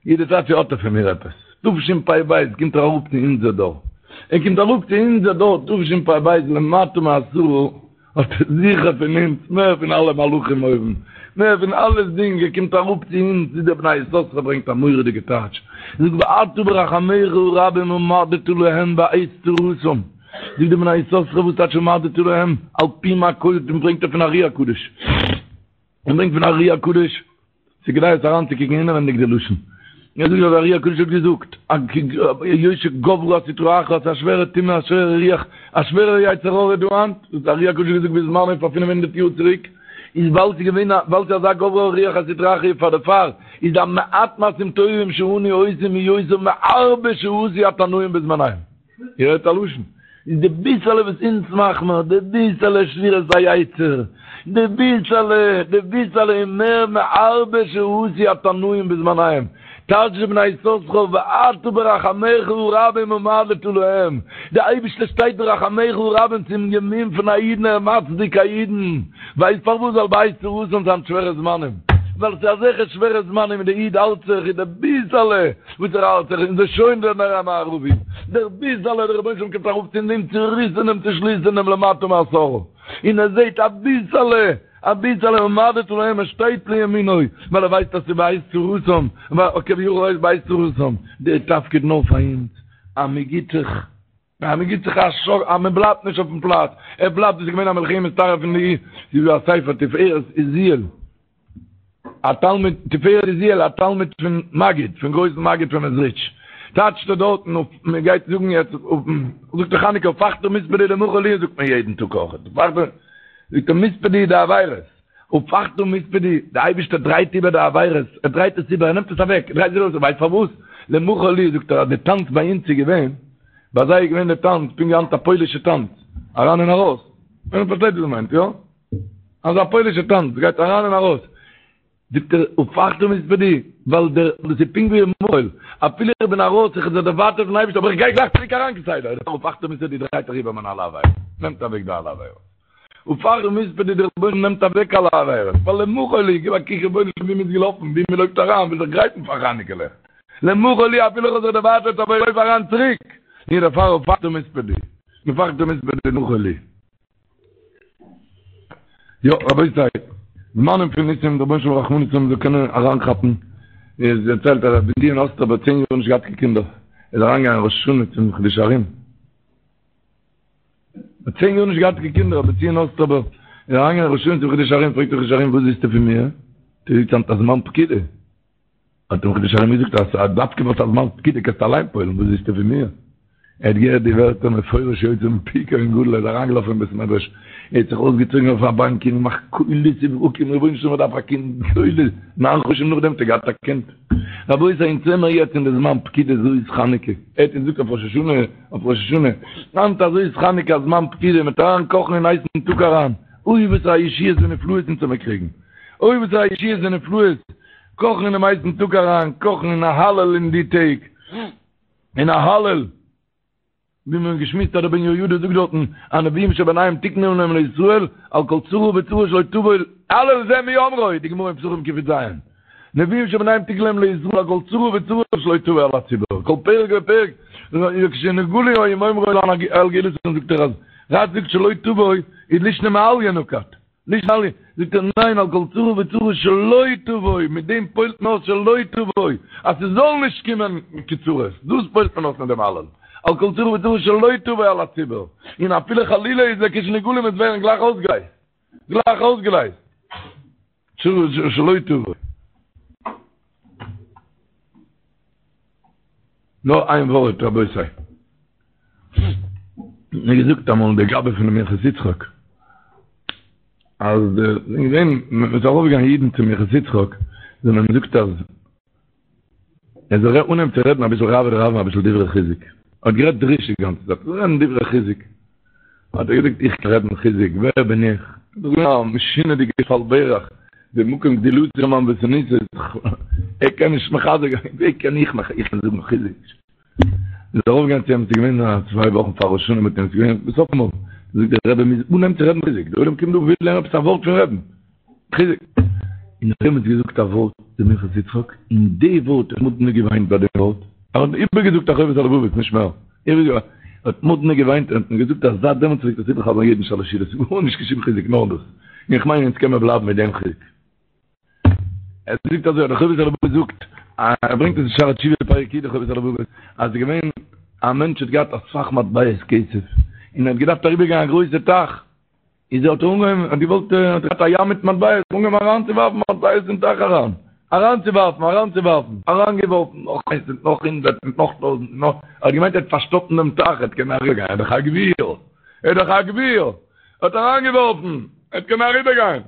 יעדע צייט צו האט ער פון מיר עפעס. תשפ"ב קומט ער אראפ צו אונזער דור. ער קומט אראפ צו אונזער דור תשפ"ב למטה מעשרה האט ער זיכער פון אונז מער פון אלע מלאכים אויבן. מער פון אלעסדינג ער קומט אראפ צו אונז ווי דער בני יששכר ברענגט א מורא'דיגע טייטש. ער זאגט ואתה ברחמיך הרבים עמדת להם בעת צרתם. זאגט דער בני יששכר וואס טייטש עמדת להם על פי מה כל דעם ברענגט ער פון ארי הקדוש. ער ברענגט פון ארי הקדוש. ס'איז כדאי עס אריינצוקוקן אינעווענדיג די לשון. ער זאגט אז ארי הקדוש האט געזאגט, היות שגברה הסטרא אחרא, ס'איז א שווערע טומאה, א שווערע רוח, א שווערע יצר הרע דא היינט, דאס האט ארי הקדוש געזאגט בזמנו פאר פינף הונדערט יאר צוריק, איז ווייל ס'איז געווען א, ווייל ס'איז אזא גברה רוח הסטרא אחרא פאר דערפאר איז די מעט מעשים טובים שאנו עושים יותר מהרבה שעשו התנאים בזמניהם. איר הערט א לשון? איז די ביסעלע וואס אונז מאך מיר, די ביסעלע שבירת היצר, די ביסעלע, די ביסעלע איז מער מהרבה שעשו התנאים בזמניהם. טייטש די בני יששכר ואתה ברחמיך הרבים עמדת להם, די אייבערשטער שטייט ברחמיך הרבים צום ימין פון א אידן ער מצדיק א אידן, ווייסט פארוואס? ווייל בעת צרתם זיינען שווערע זמנים, ווייל ס'איז אזעלכע שווערע זמנים און די איד האלט זיך איז די ביסעלע וואס ער האלט זיך און ס'איז שוין דער נר המערבי, דער ביסעלע דער רבונו של עולם קומט אראפ צו דעם צוריסענעם צושליסענעם למטה מעשרה, און ער זעט אביסעלע, אביסעלע עמדת להם ער שטייט לימינו, ווייל ער ווייסט אז ס'איז בעת צרתם, כביכול איז בעת צרתם, דער תפקיד נאר פאר אונז, אז מ'גיט זיך. אז מען גיט זיך א שאק אז מען בלייבט נישט אויפן פלאץ, ער בלייבט, דאס איז געווען א מלחמת תרעב פון די, ס'איז דא א ספר תפארת עוזיאל, א תלמיד, תפארת עוזיאל א תלמיד פון מגיד, פון גרויסן מגיד פון מעזריטש, טייטשט ער דארטן אויף, מען גייט זאגן יעצט אויפן, זאגט ער חנוכה הפכת מספדי למחול לי זאגט מען יעדן טאג אויך, הפכת, זאגט ער מספדי די עבירות, הפכת מספדי, די אייבערשטער דרייט איבער די עבירות, ער דרייט עס איבער, ער נעמט עס אוועק, ער דרייט עס איבער, ווייסט פארוואס? למחול לי, זאגט ער אז די טאנץ ביי אונז איז געווען, ביי זיי איז געווען די טאנץ פונקט ווי היינט א פוילישע טאנץ, אריין און ארויס, מען פארשטייט וואס מיינט, יא? אזא פוילישע טאנץ, גייט אריין און ארויס, זאגט ער, הפכת מספדי, ווייל דער, דאס איז פונקט ווי מחול, אפילו איך בין ארויס, איך האב זיך דערווייטערט פון אייבערשטער, אבער איך גיי גלייך צוריק אריין כסדר, הפכת מספדי דרייט ער איבער מיינע אלע עבירות, נעמט אוועק די אלע עבירות. הפכת מספדי דער רבונו נעמט אוועק אלע עבירות, ווייל למחול לי, גיב א קוק רבונו של עולם ווי מ'איז געלאפן, ווי מ'לויפט אריין, וויל זיך גרייטן פאר חנוכה לעכט, למחול לי אפילו איך האב זיך דערווייטערט אבער איך לויף אריין צוריק, און דערפאר הפכת מספדי, הפכת מספדי למחול לי. יא רבותי, זמנים פון ניסים, דער רבונו של עולם רחמנות האבן זאל קענען אריינכאפן, עס דערציילט אז רבי בנציון אסטראווער האט צען יאר נישט געהאט קיין קינדער, ער איז אריינגעגאנגען ראש השנה צום חידושי הרי"ם, האט צען יאר נישט געהאט קיין קינדער, רבי בנציון אוסטראווער איז אריינגעגאנגען ראש השנה צום חידושי הרי"ם, פרעגט דער חידושי הרי"ם וואס ווילסטו פון מיר? דו זאגסט היינט א זמן פקידה. האט אים חידושי הרי"ם געזאגט אז דווקא וואס א זמן פקידה קענסטו אליין פועל'ן, וואס ווילסטו פון מיר? ער האט געהערט די ווערטער מפורש יוצא מפי כהן גדול, ער איז אריינגעלאפן אין בית מדרש, ער האט זיך אויסגעצויגן אויף א באנק און געמאכט קולות וברקים, רבונו של עולם איך דארף א קינד, קולות, ניין חדשים נאכדעם האט ער געהאט א קינד. רבותי אונז זעמער יעצט אין די זמן פקידה זאת חנוכה, ער האט אונז געזאגט אויף ראש השנה, אויף ראש השנה, היינט אזוי איז חנוכה א זמן פקידה, מ'וועט אריין קאכן אין הייסן טאג אריין, אוי וואס א ישועות ונפלאות אונז וועמיר קריגן, אוי וואס א ישועות ונפלאות, קאכן אינעם הייסן טאג אריין, קאכן אין א הלל אין די טעג, אין א הלל. ווי מיר האבן געשמועסט אז דער בן יהוידע זאגט דארטן, הנביאים שביניהם תיקנו להם לישראל, על כל צרה וצרה שלא תבוא, הלל זה מי אומרו, די גמרא אין פסחים קי"ז. נביאים שביניהם תגלה להם לישראל על כל צרה וצרה שלא תבוא על הציבור, כל פרק ופרק, וכשנגאלו היו אומרים על גאולתן זאגט ער אז רש"י זאגט שלא תבוא איז לישנא מעליא נקט, לישנא מעליא, זאגט ער ניין על כל צרה וצרה שלא תבוא, מיט דעם פועל'ט מען אויס שלא תבוא, אז ס'זאל נישט קומען קיין צרות, דאס פועל'ט מען אויס מיט דעם הלל, על כל צרה וצרה שלא תבוא על הציבור, און אפילו חלילה איז לכשנגאלין עס ווערן גלייך אויסגעלייזט, גלייך אויסגעלייזט. שלא תבוא. נאר איין ווארט רבותי. מיר געזאגט אמאל דער גבאי פון מנחת יצחק אז געווען מ'איז ארויפגעגאנגען אידן צום מנחת יצחק זיי האבן געזאגט אז ער זאל אנהייבן צו רעדן אביסל רעוא דרעוין אביסל דברי חיזוק. ער האט גערעדט דרוש די גאנצע צייט, זאל רעדן דברי חיזוק. האט ער געזאגט איך קען רעדן חיזוק, ווער בין איך? דאס איז געווען א משונה'דיגע שפל ברך, די מקום גדולתו של ענוותנותו, ער קען נישט מחזק זיין, ווי קען איך איך קען זאגן חיזוק? מ'איז ארויפגעגאנגען צו אים, ס'איז געווען א צוויי וואכן פאר ראש השנה מיט אים, ס'איז געווען בסוף אמאל, זאגט דער רבי מ'מוז אנהייבן צו רעדן חיזוק, דער עולם קומט דא וויל הערן עפעס א ווארט פון רבי'ן. חיזוק. און ער האט געזאגט א ווארט דער מנחת יצחק, און די ווארט האט מאדנע געוויינט ביי דעם ווארט, ער האט איבערגעזאגט א חובת הלבבות נישט מער, ער האט מאדנע געוויינט און האט געזאגט אז זייט דעמאלטס פלעגט עס איבערחזר'ן יעדן שלש סעודות, גארנישט קיין שום חיזוק נאר דאס, און איך מיין אונז קען מען בלייבן מיט דעם חיזוק. ער זאגט אזוי, דער חובת הלבבות זאגט, ער ברענגט עס אין שערי תשובה פרק י, דער חובת הלבבות, אז ס'איז געווען א מענטש האט געהאט אסאך מטבעות כסף, און ער האט געדארפט אריבערגיין א גרויסע טייך, איז ער האט אנגעהויבן, האט געוואלט, האט געהאט א ים מיט מטבעות, אנגעהויבן אריינצואווארפן מטבעות אין טייך אריין, אריינצואווארפן, אריינצואווארפן, אריינגעווארפן, נאך איינס און נאך הונדרעט און נאך טויזנט און נאך, ער האט געמיינט ער וועט פארשטאפן דעם טייך, ער וועט קענען אריבערגיין, ער איז דאך א גביר, ער איז דאך א גביר, ער האט אריינגעווארפן, ער וועט קענען אריבערגיין.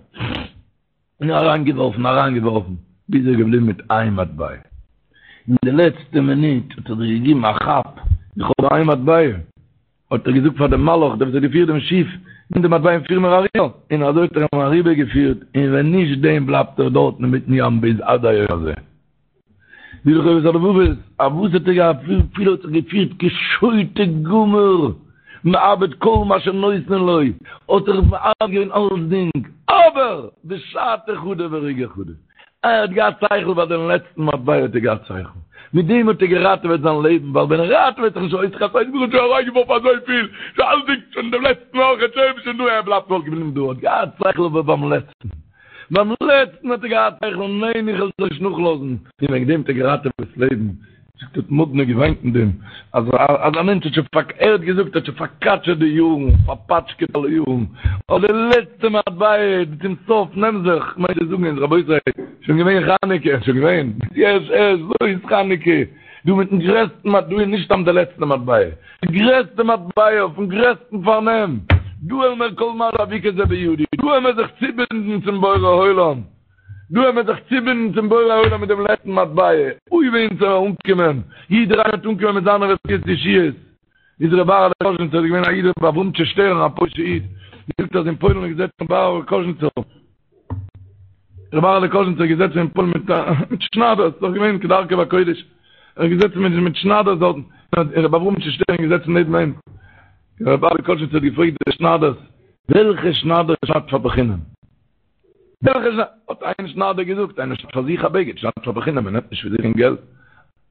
און אריינגעווארפן, אריינגעווארפן, ביז ער איז געבליבן מיט איין מטבע. אין די לעצטע מינוט האט ער זיך געגעבן א כאפ, איך האב איין מטבע. האט ער געזאגט פאר דעם מלאך, דער וואס האט געפירט דעם שיף, נעם די מטבע און פיר מיר אריבער. און אזוי האט ער אים אריבערגעפירט, און ווען נישט דעם בלייבט ער דארטן אינמיטן ים ביז עד היום הזה. ווי די חובת הלבבות, א וואס האט ער געהאט וויפיל האט זיך געפירט כשוטה גמור, מאבד כל מה שנותנין לו, האט ער מאבד געווען אלסדינג, אבער בשעתא חדא ורגעא חדא, ער האט געהאט שכל ביי דעם לעצטן מטבע האט ער געהאט שכל, מיט דעם האט ער געראטעוועט זיין לעבן, ווייל ווען ער ראטעוועט זיך נישט אויס חס ושלום האט שוין אריינגעווארפן אזויפיל, שוין אלסדינג, שוין דעם לעצטן אויך, שוין שוין דא, ער בלייבט וואלט געבליבן דא, האט געהאט שכל אבער ביים לעצטן. ביים לעצטן האט ער געהאט שכל, ניין איך וועל זיך נישט נאכלאזן, און וועגן דעם האט ער געראטעוועט ס'לעבן, זאגט האט מאדנע געוויינט אין דעם, אז אז א מענטש האט שוין פאר ער האט געזאגט האט שוין פארקאטשעט די יארן, פארפאטשקעט אלע יארן, אבער די לעצטע מטבע צום סוף נעם זיך, כ'מיין צו זאגן אונז רבותי, שוין געווען חנוכה, שוין געווען, יש יש, זאת חנוכה, דא מיטן גרעסטן מטבע, דא איז נישט סתם די לעצטע מטבע, די גרעסטע מטבע אויפן גרעסטן פארנעם, דא וועלן מיר כל מה שאביקה זה בידי, דא וועלן מיר זיך צובינדן צום בורא עולם, דא וועלן מיר זיך צובינדן צום בורא עולם מיט דעם לעצטן מטבע, אוי ווי אונז וועלן אנקומען, יעדער איינער וועט אנקומען מיט זיינע רפואות ישועות, איז ר' אהר'לע קאזשניצער איז געווען א איד ר' אברהמטשע שטערן א פוילישע איד, געזאגט אז אין פוילן איז געזעצן ר' אהר'לע קאזשניצער, ר' אהר'לע קאזשניצער איז געזעצן אין פוילן מיט מיט שניידערס, ס'איז דאך געווען כדרכו בקודש, ער איז געזעצן מיט מיט שניידערס דארטן, און ר' אברהמטשע שטערן איז געזעצן נעבן אים, ר' אהר'לע קאזשניצער האט געפרעגט די שניידערס, וועלכע שניידער שניידט פאר בחינם? וועלכע שניידער? האט איין שניידער געזאגט, איינער שניידט פאר זיך א בגד, שניידט פאר בחינם, מען נעמט נישט פאר זיך קיין געלט.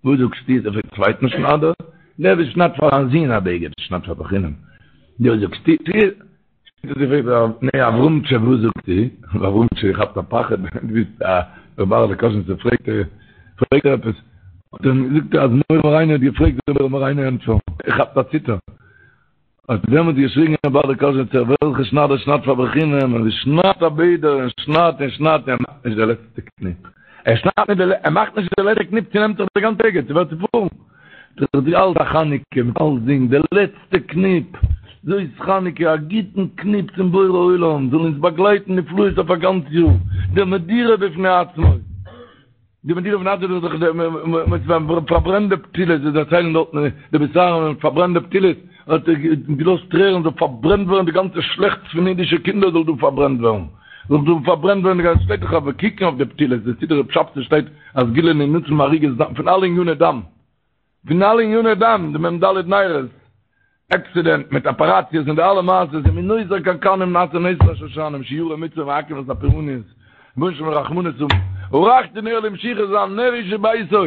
וואס זאגסטו? האט ער געפרעגט צווייטן שניידער, דער וואס שניידט פאר זיין זון א בגד, שניידט פאר בחינם. וואס זאגסטו? נו, אברהמטשע, וואס זאגסטו? אברהמטשע כאפט א פחד, דו ביסט א ר' אהר'לע קאזשניצער, פרעגט ער, פרעגט ער עפעס, האט ער אים געזאגט אז מורה מורינו האט געפרעגט, זאל מורה מורינו ענטפערן, ער כאפט א ציטער. האט דעמאלט געשריגן ר' אהר'לע קאזשניצער, וועלכע שניידער שניידט פאר בחינם, און שניידט א ביידער, און שניידט און שניידט, און ער מאכט נישט די לעצטע קניפ. ער שניידט נישט די, ער מאכט נישט די לעצטע קניפ, צונעמט זיך די גאנצע בגד, ס'ווערט צופארן. דאס איז אלץ א חנוכה מיט אלסדינג, די לעצטע קניפ, זאת חנוכה, א גוטן קניפ צום בורא עולם, זאל אונז באגלייטן נפלאות אויף א גאנץ יאר, די מדורה בפני עצמו, די מדורה בפני עצמו איז דאך די וואס פארברענט די פתילות, זיי דערציילן דארטן די בית אהרן ווען מ'פארברענט די פתילות, האט ער געלאזט טרערן זאל פארברענט ווערן די גאנצע שלעכטס פון אידישע קינדער זאל דא פארברענט ווערן, זאל דא פארברענט ווערן די גאנצע, שטייט דאך אבער קוקן אויף די פתילות, די סידור רב שבתי שטייט א סגולה להינצל מהריגת דם, פון אלע עניני דם, פון אלע עניני דם, די מ ד נרות, עקסידענט מיט אפעראציעס און די אלע מעשות, און מנותר קנקנים נעשה נס לשושנים, שיורי מצוה מעכב את הפורעניות, רבונו של עולם רחמנות האבן. ערכתי נר למשיחי זיין נר איש וביתו,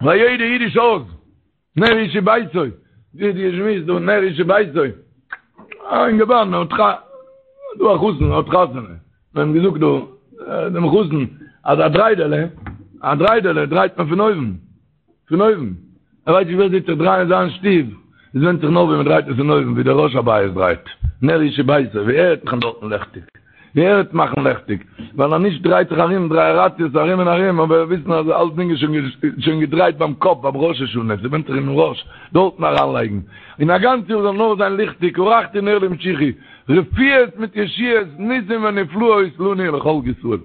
ביי יעדע אידיש הויז, נר איש וביתו, ווי די שמועס דא נר איש וביתו, א אינגערמאן האט ח דא א חתן האט חתונה, מיר האבן געזאגט דא דעם חתן אז א דריידעלע, א דריידעלע דרייט מען פון אויבן. פון אויבן. ער ווייסט נישט ווי אזוי צו דרייען זיין שטוב, עס ווענדט זיך נאר ווי מען דרייט עס פון אויבן, ווי דער ראש הבית דרייט, נר איש וביתו, ווי ער וועט מאכן דארטן לעכטיג, ווי ער וועט מאכן לעכטיג, ווייל אז נישט דרייט זיך ארום דרייעראציעס ארום און ארום, אבער וויסן אז אלסדינג איז שוין געדרייט ביים קאפ ביים ראש השנה, ס'ווענדט זיך אינעם ראש, דארטן אריינלייגן, און א גאנץ יאר זאל נאר זיין ליכטיג, ערכתי נר למשיחי, רפואות מיט ישועות, ניסים ונפלאות לנו ולכל ישראל.